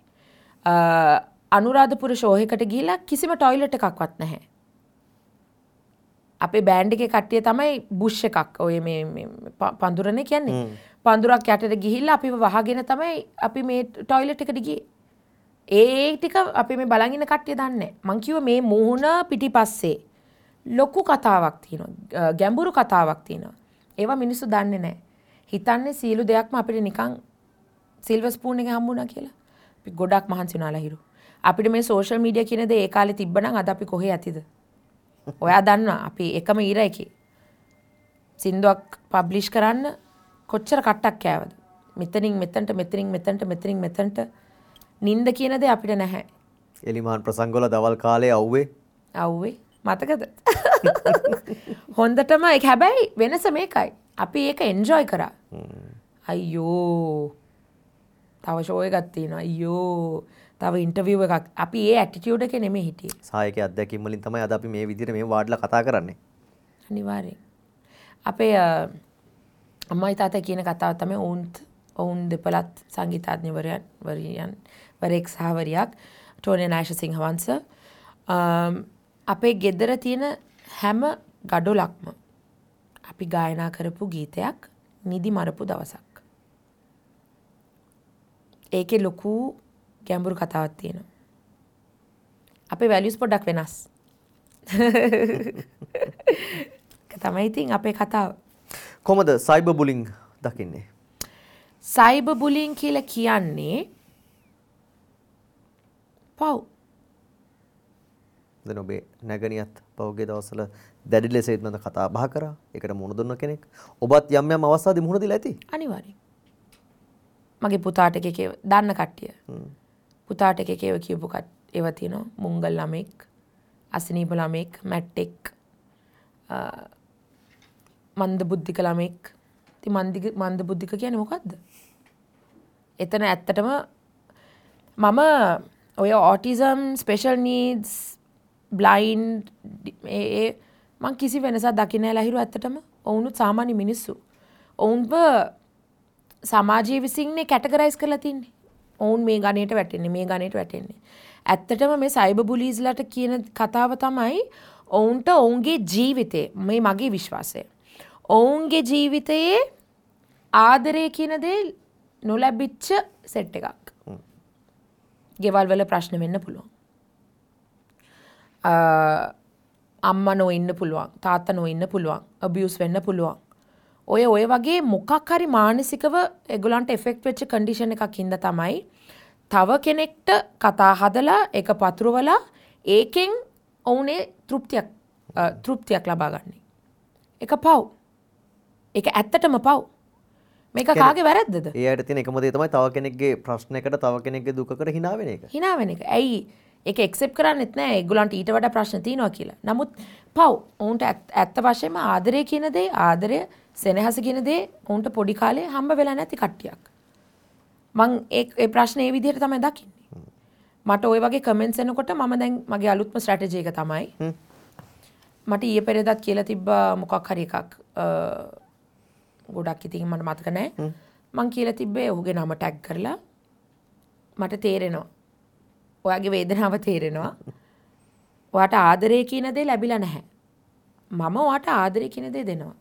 අනුරාධපුර ෂෝ එකකට ගිහිල්ලා කිසිම ටොයිලට් එකක්වත් නැහැ. අපේ බෑන්ඩ් එකේ කට්ටිය තමයි බුෂ් එකක් ඔය මේ පඳුරනේ කියන්නේ. පඳුරක් යටට ගිහිල්ලා අපිව වහගෙන තමයි අපි මේ ටොයිලට් එකට ගියේ. ඒ ටික අපි මේ බලන් ඉන්න කට්ටිය දන්නේ නැහැ. මං කිව්වා මේ මුහුණ පිටිපස්සේ ලොකු කතාවක් තියෙනවා. ගැඹුරු කතාවක් තියෙනවා. ඒවා මිනිස්සු දන්නේ නැහැ. හිතන්නේ සියලු දෙයක්ම අපිට නිකන් සිල්වර් ස්පූන් එක හම්බුණා කියලා. අපි ගොඩක් මහන්සි වුණා ලහිරු. අපිට මේ සෝෂල් මීඩියා කියන දේ ඒ කාලේ තිබ්බනම් අද අපි කොහේ ඇතිද? ඔයා දන්නවා අපි එකම ඊර එකේ සින්දුවක් පබ්ලිෂ් කරන්න කොච්චර කට්ටක් කෑවද? මෙතනින් මෙතනට මෙතනින් මෙතනට මෙතනින් මෙතනට නින්ද කියන දේ අපිට නැහැ. එලිමාන් ප්‍රසංගවල දවල් කාලේ අවුවේ අවුවේ මතකද? හොඳටම ඒක. හැබැයි වෙනස මේකයි. අපි ඒක එන්ජොයි කරා. අයියෝ තව ෂෝ එකක් තියෙනවා. අයියෝ තව ඉන්ටර්විව් එකක්. අපි ඒ ඇටිටියුඩ් එකේ නෙමෙයි හිටියේ. සහායකයේ අත්දැකීම් වලින් තමයි අද අපි මේ විදිහට මේ වාඩිලා කතා කරන්නේ. අනිවාර්යෙන්. අපේ අම්මයි තාත්තයි කියන කතාව තමයි ඔවුන් දෙපළත් සංගීතඥවරයන් වරයෙක් සහ වරියක් ටෝනි නායෂ සිංහවංශ. අපේ ගෙදර තියෙන හැම ගඩොලක්ම අපි ගායනා කරපු ගීතයක් නිදි මරපු දවසක්. ඒකේ ලොකු ගැඹුරු කතාවක් තියෙනවා. අපේ වැලියුස් පොඩ්ඩක් වෙනස්. ඒක තමයි ඉතින් අපේ කතාව. කොහොමද සයිබර් බුලින් දකින්නේ? සයිබර් බුලින් කියලා කියන්නේ පව්. දැන් ඔබේ නැගණියත් පහුගිය දවස්වල දැඩි ලෙස ඒත් මම කතා බහ කරා. ඒකට මුහුණ දුන්න කෙනෙක්. ඔබත් යම් යම් අවස්ථාදී මුහුණ දීලා ඇති. අනිවාර්යෙන්. මගේ පුතාට එක එක දන්න කට්ටිය. පුතාට එක එක ඒවා කියපු ඒවා තියෙනවා. මුංගල් ළමෙක්, අසනීප ළමෙක්, මැට්ටෙක්, මන්ද බුද්ධික ළමෙක්. ඉතින් මන්ද බුද්ධික කියන්නේ මොකද්ද? එතන ඇත්තටම මම ඔය ඔටිසම්, ස්පෙෂල් නීඩ්ස්, බ්ලයින්ඩ් ඒ මං කිසි වෙනසක් දකින්නේ නැහැ ලහිරු. ඇත්තටම ඔවුනුත් සාමාන්‍ය මිනිස්සු. ඔවුන්ව සමාජය විසින්නේ කැටගරයිස් කරලා තින්නේ. ඔවුන් මේ ගණයට වැටෙන්නේ, මේ ගණයට වැටෙන්නේ. ඇත්තටම මේ සයිබර් බුලීස්ලාට කියන කතාව තමයි ඔවුන්ට ඔවුන්ගේ ජීවිතේ, මේ මගේ විශ්වාසය, ඔවුන්ගේ ජීවිතයේ ආදරය කියන දේ නොලැබිච්ච සෙට් එකක්. ගෙවල් වල ප්‍රශ්න වෙන්න පුළුවන්. අම්මා නොඉන්න පුළුවන්, තාත්තා නොඉන්න පුළුවන්, අබියුස් වෙන්න පුළුවන්. ඔය වගේ මොකක් හරි මානසිකව ඒගොල්ලන්ට එෆෙක්ට් වෙච්ච කන්ඩිෂන් එකක් හින්දා තමයි තව කෙනෙක්ට කතා හදලා ඒක පතුරවලා ඒකෙන් ඔවුනේ තෘප්තියක් ලබා ගන්නේ. ඒක පව්. ඒක ඇත්තටම පව්. මේක කාගේ වැරද්දද? ඒ අයට තියෙන එකම දේ තමයි තව කෙනෙක්ගේ ප්‍රශ්නයකට, තව කෙනෙක්ගේ දුකකට hina වෙන එක. hina වෙන එක. ඇයි ඒක ඇක්සෙප්ට් කරන්නෙත් නෑ. ඒගොල්ලන්ට ඊට වඩා ප්‍රශ්න තියෙනවා කියලා. නමුත් පව්. ඔවුන්ට ඇත්ත වශයෙන්ම ආදරය කියන දේ, ආදරය, සෙනෙහස කියන දේ ඔවුන්ට පොඩි කාලේ හම්බ වෙලා නැති කට්ටියක්. මං ඒ ප්‍රශ්නේ ඒ විදිහට තමයි දකින්නේ. මට ওই වගේ කමෙන්ට්ස් එනකොට මම දැන් මගේ අලුත්ම ස්ට්‍රැටජි එක තමයි. මට ඊයේ පෙරේදත් කියලා තිබ්බා මොකක් හරි එකක්. ගොඩක් ඉතින් මට මතක නෑ. මං කියලා තිබ්බේ ඔහුගේ නම ටැග් කරලා මට තේරෙනවා. ඔයාගේ වේදනාව තේරෙනවා. ඔයාට ආදරය කියන දේ ලැබිලා නැහැ. මම ඔයාට ආදරය කියන දේ දෙනවා.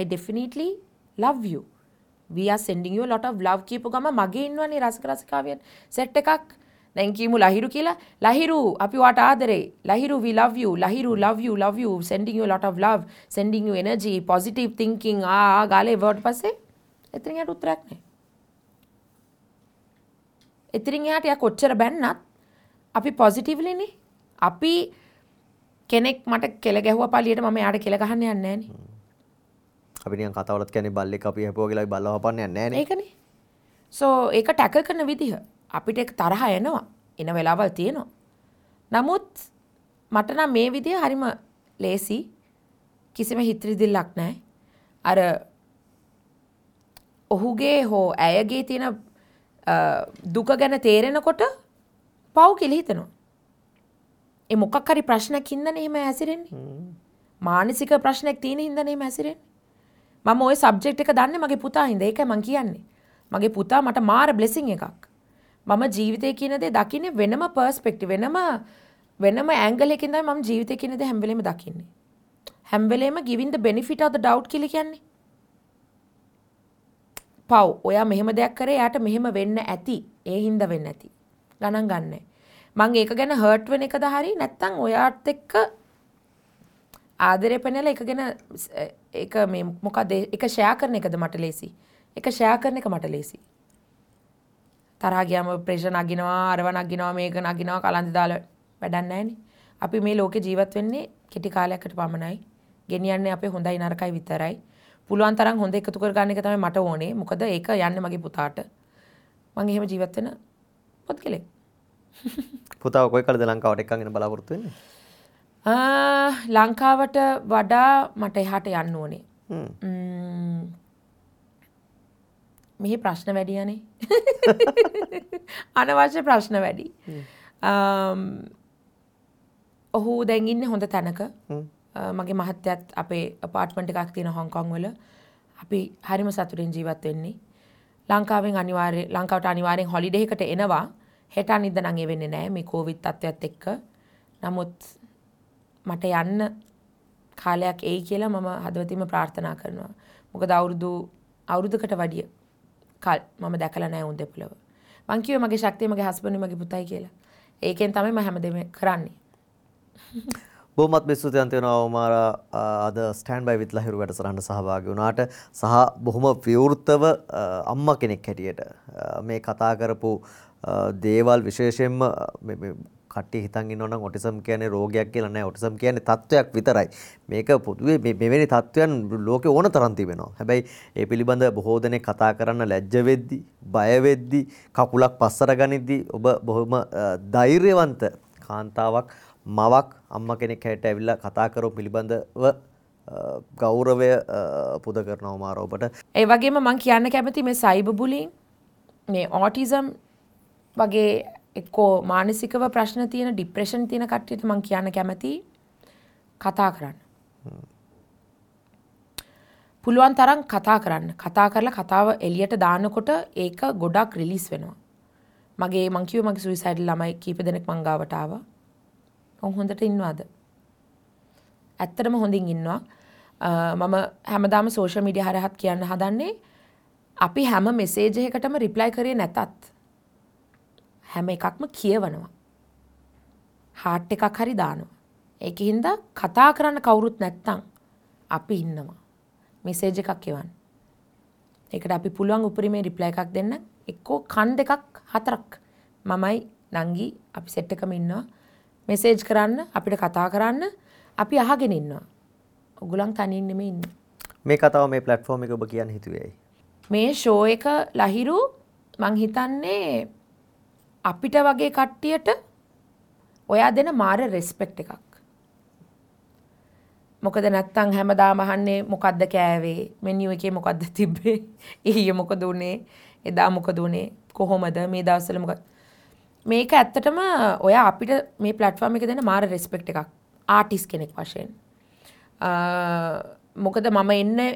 I definitely love you. We are sending you a lot of love කියපු ගම මගේ ඉන්නවනේ රසක රසිකාවියන් සෙට් එකක්. දැන් කියමු ලහිරු කියලා. ලහිරු අපි ඔයාට ආදරේ. Lahiru we love you. Lahiru love you, love you, sending you a lot of love, sending you energy, positive thinking. ආ ගාලේ වර්ඩ් පස්සේ එතනින් එහාට උත්තරයක් නැහැ. එතනින් එහාට යා කොච්චර බැන්නත් අපි පොසිටිව්ලි නේ. අපි කෙනෙක් මට කෙල ගැහුවා පළියට මම එයාට කෙල ගහන්න යන්නේ නැහනේ. අපි නිකන් කතාවලත් කියන්නේ බල්ලෙක් අපි හැපුවා කියලා අපි බල්ලව හපන්න යන්නේ නැහනේ. ඒකනේ. සෝ ඒක ටැකල් කරන විදිහ අපිට ඒක තරහ එනවා. එන වෙලාවල් තියෙනවා. නමුත් මට නම් මේ විදිහ හරිම ලේසි. කිසිම හිත රිදිල්ලක් නැහැ. අර ඔහුගේ හෝ ඇයගේ තියෙන දුක ගැන තේරෙනකොට පව් කියලා හිතෙනවා. ඒ මොකක් හරි ප්‍රශ්නයක් හින්දානේ එහෙම හැසිරෙන්නේ. මානසික ප්‍රශ්නයක් තියෙන හින්දානේ එහෙම හැසිරෙන්නේ. මම ওই සබ්ජෙක්ට් එක දන්නේ මගේ පුතා හින්දා. ඒකයි මං කියන්නේ. මගේ පුතා මට මාර බ්ලෙසිං එකක්. මම ජීවිතය කියන දේ දකින්නේ වෙනම පර්ස්පෙක්ටිව්, වෙනම ඇන්ගල් එකකින් තමයි මම ජීවිතය කියන දේ හැම වෙලේම දකින්නේ. හැම වෙලේම giving the benefit of the doubt කියලා කියන්නේ. පව්. ඔයා මෙහෙම දෙයක් කරේ එයාට මෙහෙම වෙන්න ඇති. ඒ හින්දා වෙන්න ඇති. ගණන් ගන්නෑ. මං ඒක ගැන හර්ට් වෙන එකද හරි නැත්තම් ඔයාත් එක්ක ආදරය පෙන්නලා ඒක ගැන ඒක මේ මොකද ඒක ෂෙයා කරන එකද මට ලේසි. ඒක ෂෙයා කරන එක මට ලේසි. තරහා ගියාම ප්‍රෙෂර් නගිනවා, අරව නගිනවා, මේක නගිනවා, කලන්ත දාලා වැඩක් නැහැනේ. අපි මේ ලෝකේ ජීවත් වෙන්නේ කෙටි කාලයකට පමණයි. ගෙනියන්නේ අපේ හොඳයි නරකයි විතරයි. පුළුවන් තරම් හොඳ එකතු කර ගන්න එක තමයි මට ඕනේ. මොකද ඒක යන්නේ මගේ පුතාට. මං එහෙම ජීවත් වෙන පුද්ගලෙක්. පුතාව කොයි කාලෙද ලංකාවට එක්කන් එන බලාපොරොත්තු වෙන්නේ? ලංකාවට වඩා මට එහාට යන්න ඕනේ. මෙහි ප්‍රශ්න වැඩි යන්නේ. අනවශ්‍ය ප්‍රශ්න වැඩි. ඔහු දැන් ඉන්නේ හොඳ තැනක. මගේ මහත්තයත් අපේ අපාර්ට්මන්ට් එකක් තියෙන හොංකොං වල. අපි හරිම සතුටින් ජීවත් වෙන්නේ. ලංකාවෙන් අනිවාර්ය ලංකාවට අනිවාර්යෙන් හොලිඩේ එකට එනවා. හෙට අනිද්දා නම් ඒ වෙන්නේ නෑ මේ කොවිඩ් තත්ත්වයත් එක්ක. නමුත් මට යන්න කාලයක් එයි කියලා මම හදවතින්ම ප්‍රාර්ථනා කරනවා. මොකද අවුරුද්දකට වැඩිය කල් මම දැකලා නෑ උන් දෙපළව. මං කිව්වේ මගේ ශක්තිය මගේ හස්බන්ඩ් මගේ පුතයි කියලා. ඒකෙන් තමයි මම හැමදේම කරන්නේ. බොහොමත්ම ස්තුතිවන්ත වෙනවා උමාරා අද ස්ටෑන්ඩ් බයි විත් ලහිරු වැඩසටහනට සහභාගී වුණාට සහ බොහොම විවෘතව අම්මා කෙනෙක් හැටියට මේ කතා කරපු දේවල් විශේෂයෙන්ම මේ කට්ටිය හිතන් ඉන්නවා නම් ඔටිසම් කියන්නේ රෝගයක් කියලා නෑ. ඔටිසම් කියන්නේ තත්ත්වයක් විතරයි. මේක පොදුවේ මෙවැනි තත්ත්වයන් ලෝකේ ඕන තරම් තිබෙනවා. හැබැයි ඒ පිළිබඳ බොහෝ දෙනෙක් කතා කරන්න ලැජ්ජ වෙද්දි, බය වෙද්දි, කකුලක් පස්සට ගනිද්දි ඔබ බොහොම ධෛර්යවන්ත කාන්තාවක්, මවක්, අම්මා කෙනෙක් හැටියට ඇවිල්ලා කතා කරපු පිළිබඳව ගෞරවය පුද කරනවා මාර ඔබට. ඒ වගේම මං කියන්න කැමති මේ සයිබර් බුලින්, මේ ඔටිසම් වගේ එක්කෝ මානසිකව ප්‍රශ්න තියෙන, ડિප්‍රෙෂන් තියෙන කට්ටියට මං කියන්න කැමති කතා කරන්න. පුළුවන් තරම් කතා කරන්න. කතා කරලා කතාව එළියට දානකොට ඒක ගොඩක් රිලීස් වෙනවා. මගේ මං කිව්වේ මගේ සුයිසයිඩල් ළමයි කීප දෙනෙක් මං ගාවට ආවා. ඔවුන් හොඳට ඉන්නවාද? ඇත්තටම හොඳින් ඉන්නවා. මම හැමදාම සෝෂල් මීඩියා හරහත් කියන්න හදන්නේ අපි හැම මෙසේජ් එකකටම රිප්ලයි කරේ නැතත් හැම එකක්ම කියවනවා. හાર્ට් එකක් හරි දානවා. ඒකින්ද කතා කරන්න කවුරුත් නැත්තම් අපි ඉන්නවා. මෙසේජ් එකක් එවන්න. ඒකට අපි පුළුවන් උපරිමේ රිප්ලයි එකක් දෙන්න. එක්කෝ කන් දෙකක් හතරක් මමයි නංගි අපි සෙට් එකම ඉන්නවා. මෙසේජ් කරන්න අපිට කතා කරන්න අපි අහගෙන ඉන්නවා. ඔයගොල්ලන් තනියෙන් නෙමෙයි ඉන්නේ. මේ කතාව මේ ප්ලැට්ෆෝම් එක ඔබ කියන්න හිතුවේ ඇයි? මේ ෂෝ එක ලහිරු මං හිතන්නේ අපිට වගේ කට්ටියට ඔයා දෙන මාර රෙස්පෙක්ට් එකක්. මොකද නැත්තම් හැමදාම අහන්නේ මොකද්ද කෑවේ, මෙනියු එකේ මොකද්ද තිබ්බේ, ඊයේ මොකද උනේ, එදා මොකද උනේ, කොහොමද මේ දවස්වල මොකද. මේක ඇත්තටම ඔයා අපිට මේ ප්ලැට්ෆෝම් එක දෙන මාර රෙස්පෙක්ට් එකක් ආටිස්ට් කෙනෙක් වශයෙන්. මොකද මම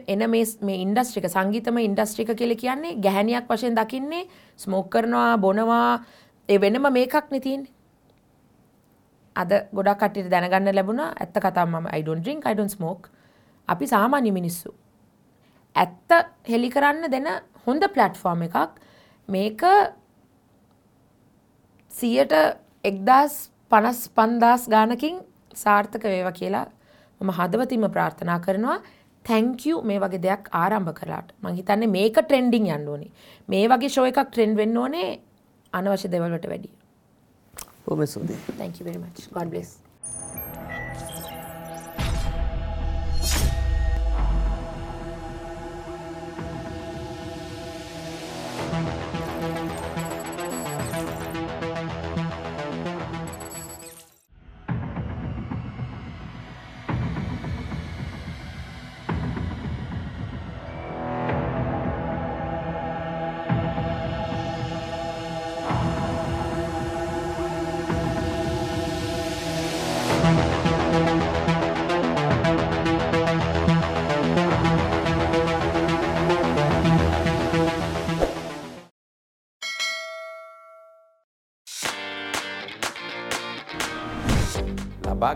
එන මේ ඉන්ඩස්ට්‍රි එක, සංගීතමය ඉන්ඩස්ට්‍රි එක කියලා කියන්නේ ගැහැණියක් වශයෙන් දකින්නේ ස්මෝක් කරනවා, බොනවා, ඒ වෙනම මේකක් නේ තියෙන්නේ. අද ගොඩක් කට්ටියට දැනගන්න ලැබුණා ඇත්ත කතාව මම I don't drink, I don't smoke. අපි සාමාන්‍ය මිනිස්සු. ඇත්ත හෙලි කරන්න දෙන හොඳ ප්ලැට්ෆෝම් එකක්. මේක 1,055,000 ගානකින් සාර්ථක වේවා කියලා මම හදවතින්ම ප්‍රාර්ථනා කරනවා. Thank you මේ වගේ දෙයක් ආරම්භ කළාට. මං හිතන්නේ මේක ට්‍රෙන්ඩින් යන්න ඕනේ. මේ වගේ ෂෝ එකක් ට්‍රෙන්ඩ් වෙන්න ඕනේ අනවශ්‍ය දේවල් වලට වැඩිය. බොහොම ස්තුතියි. Thank you very much. God bless.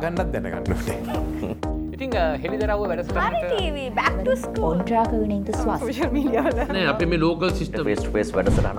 ගන්නත් දැනගන්න ඕනේ. ඉතින් හෙළිදරව්ව වැඩසටහනට TV back to school ඔන්ට්‍රාක විනින්ත ස්වාස් social media වල නෑ අපි මේ local system face to face වැඩසටහන.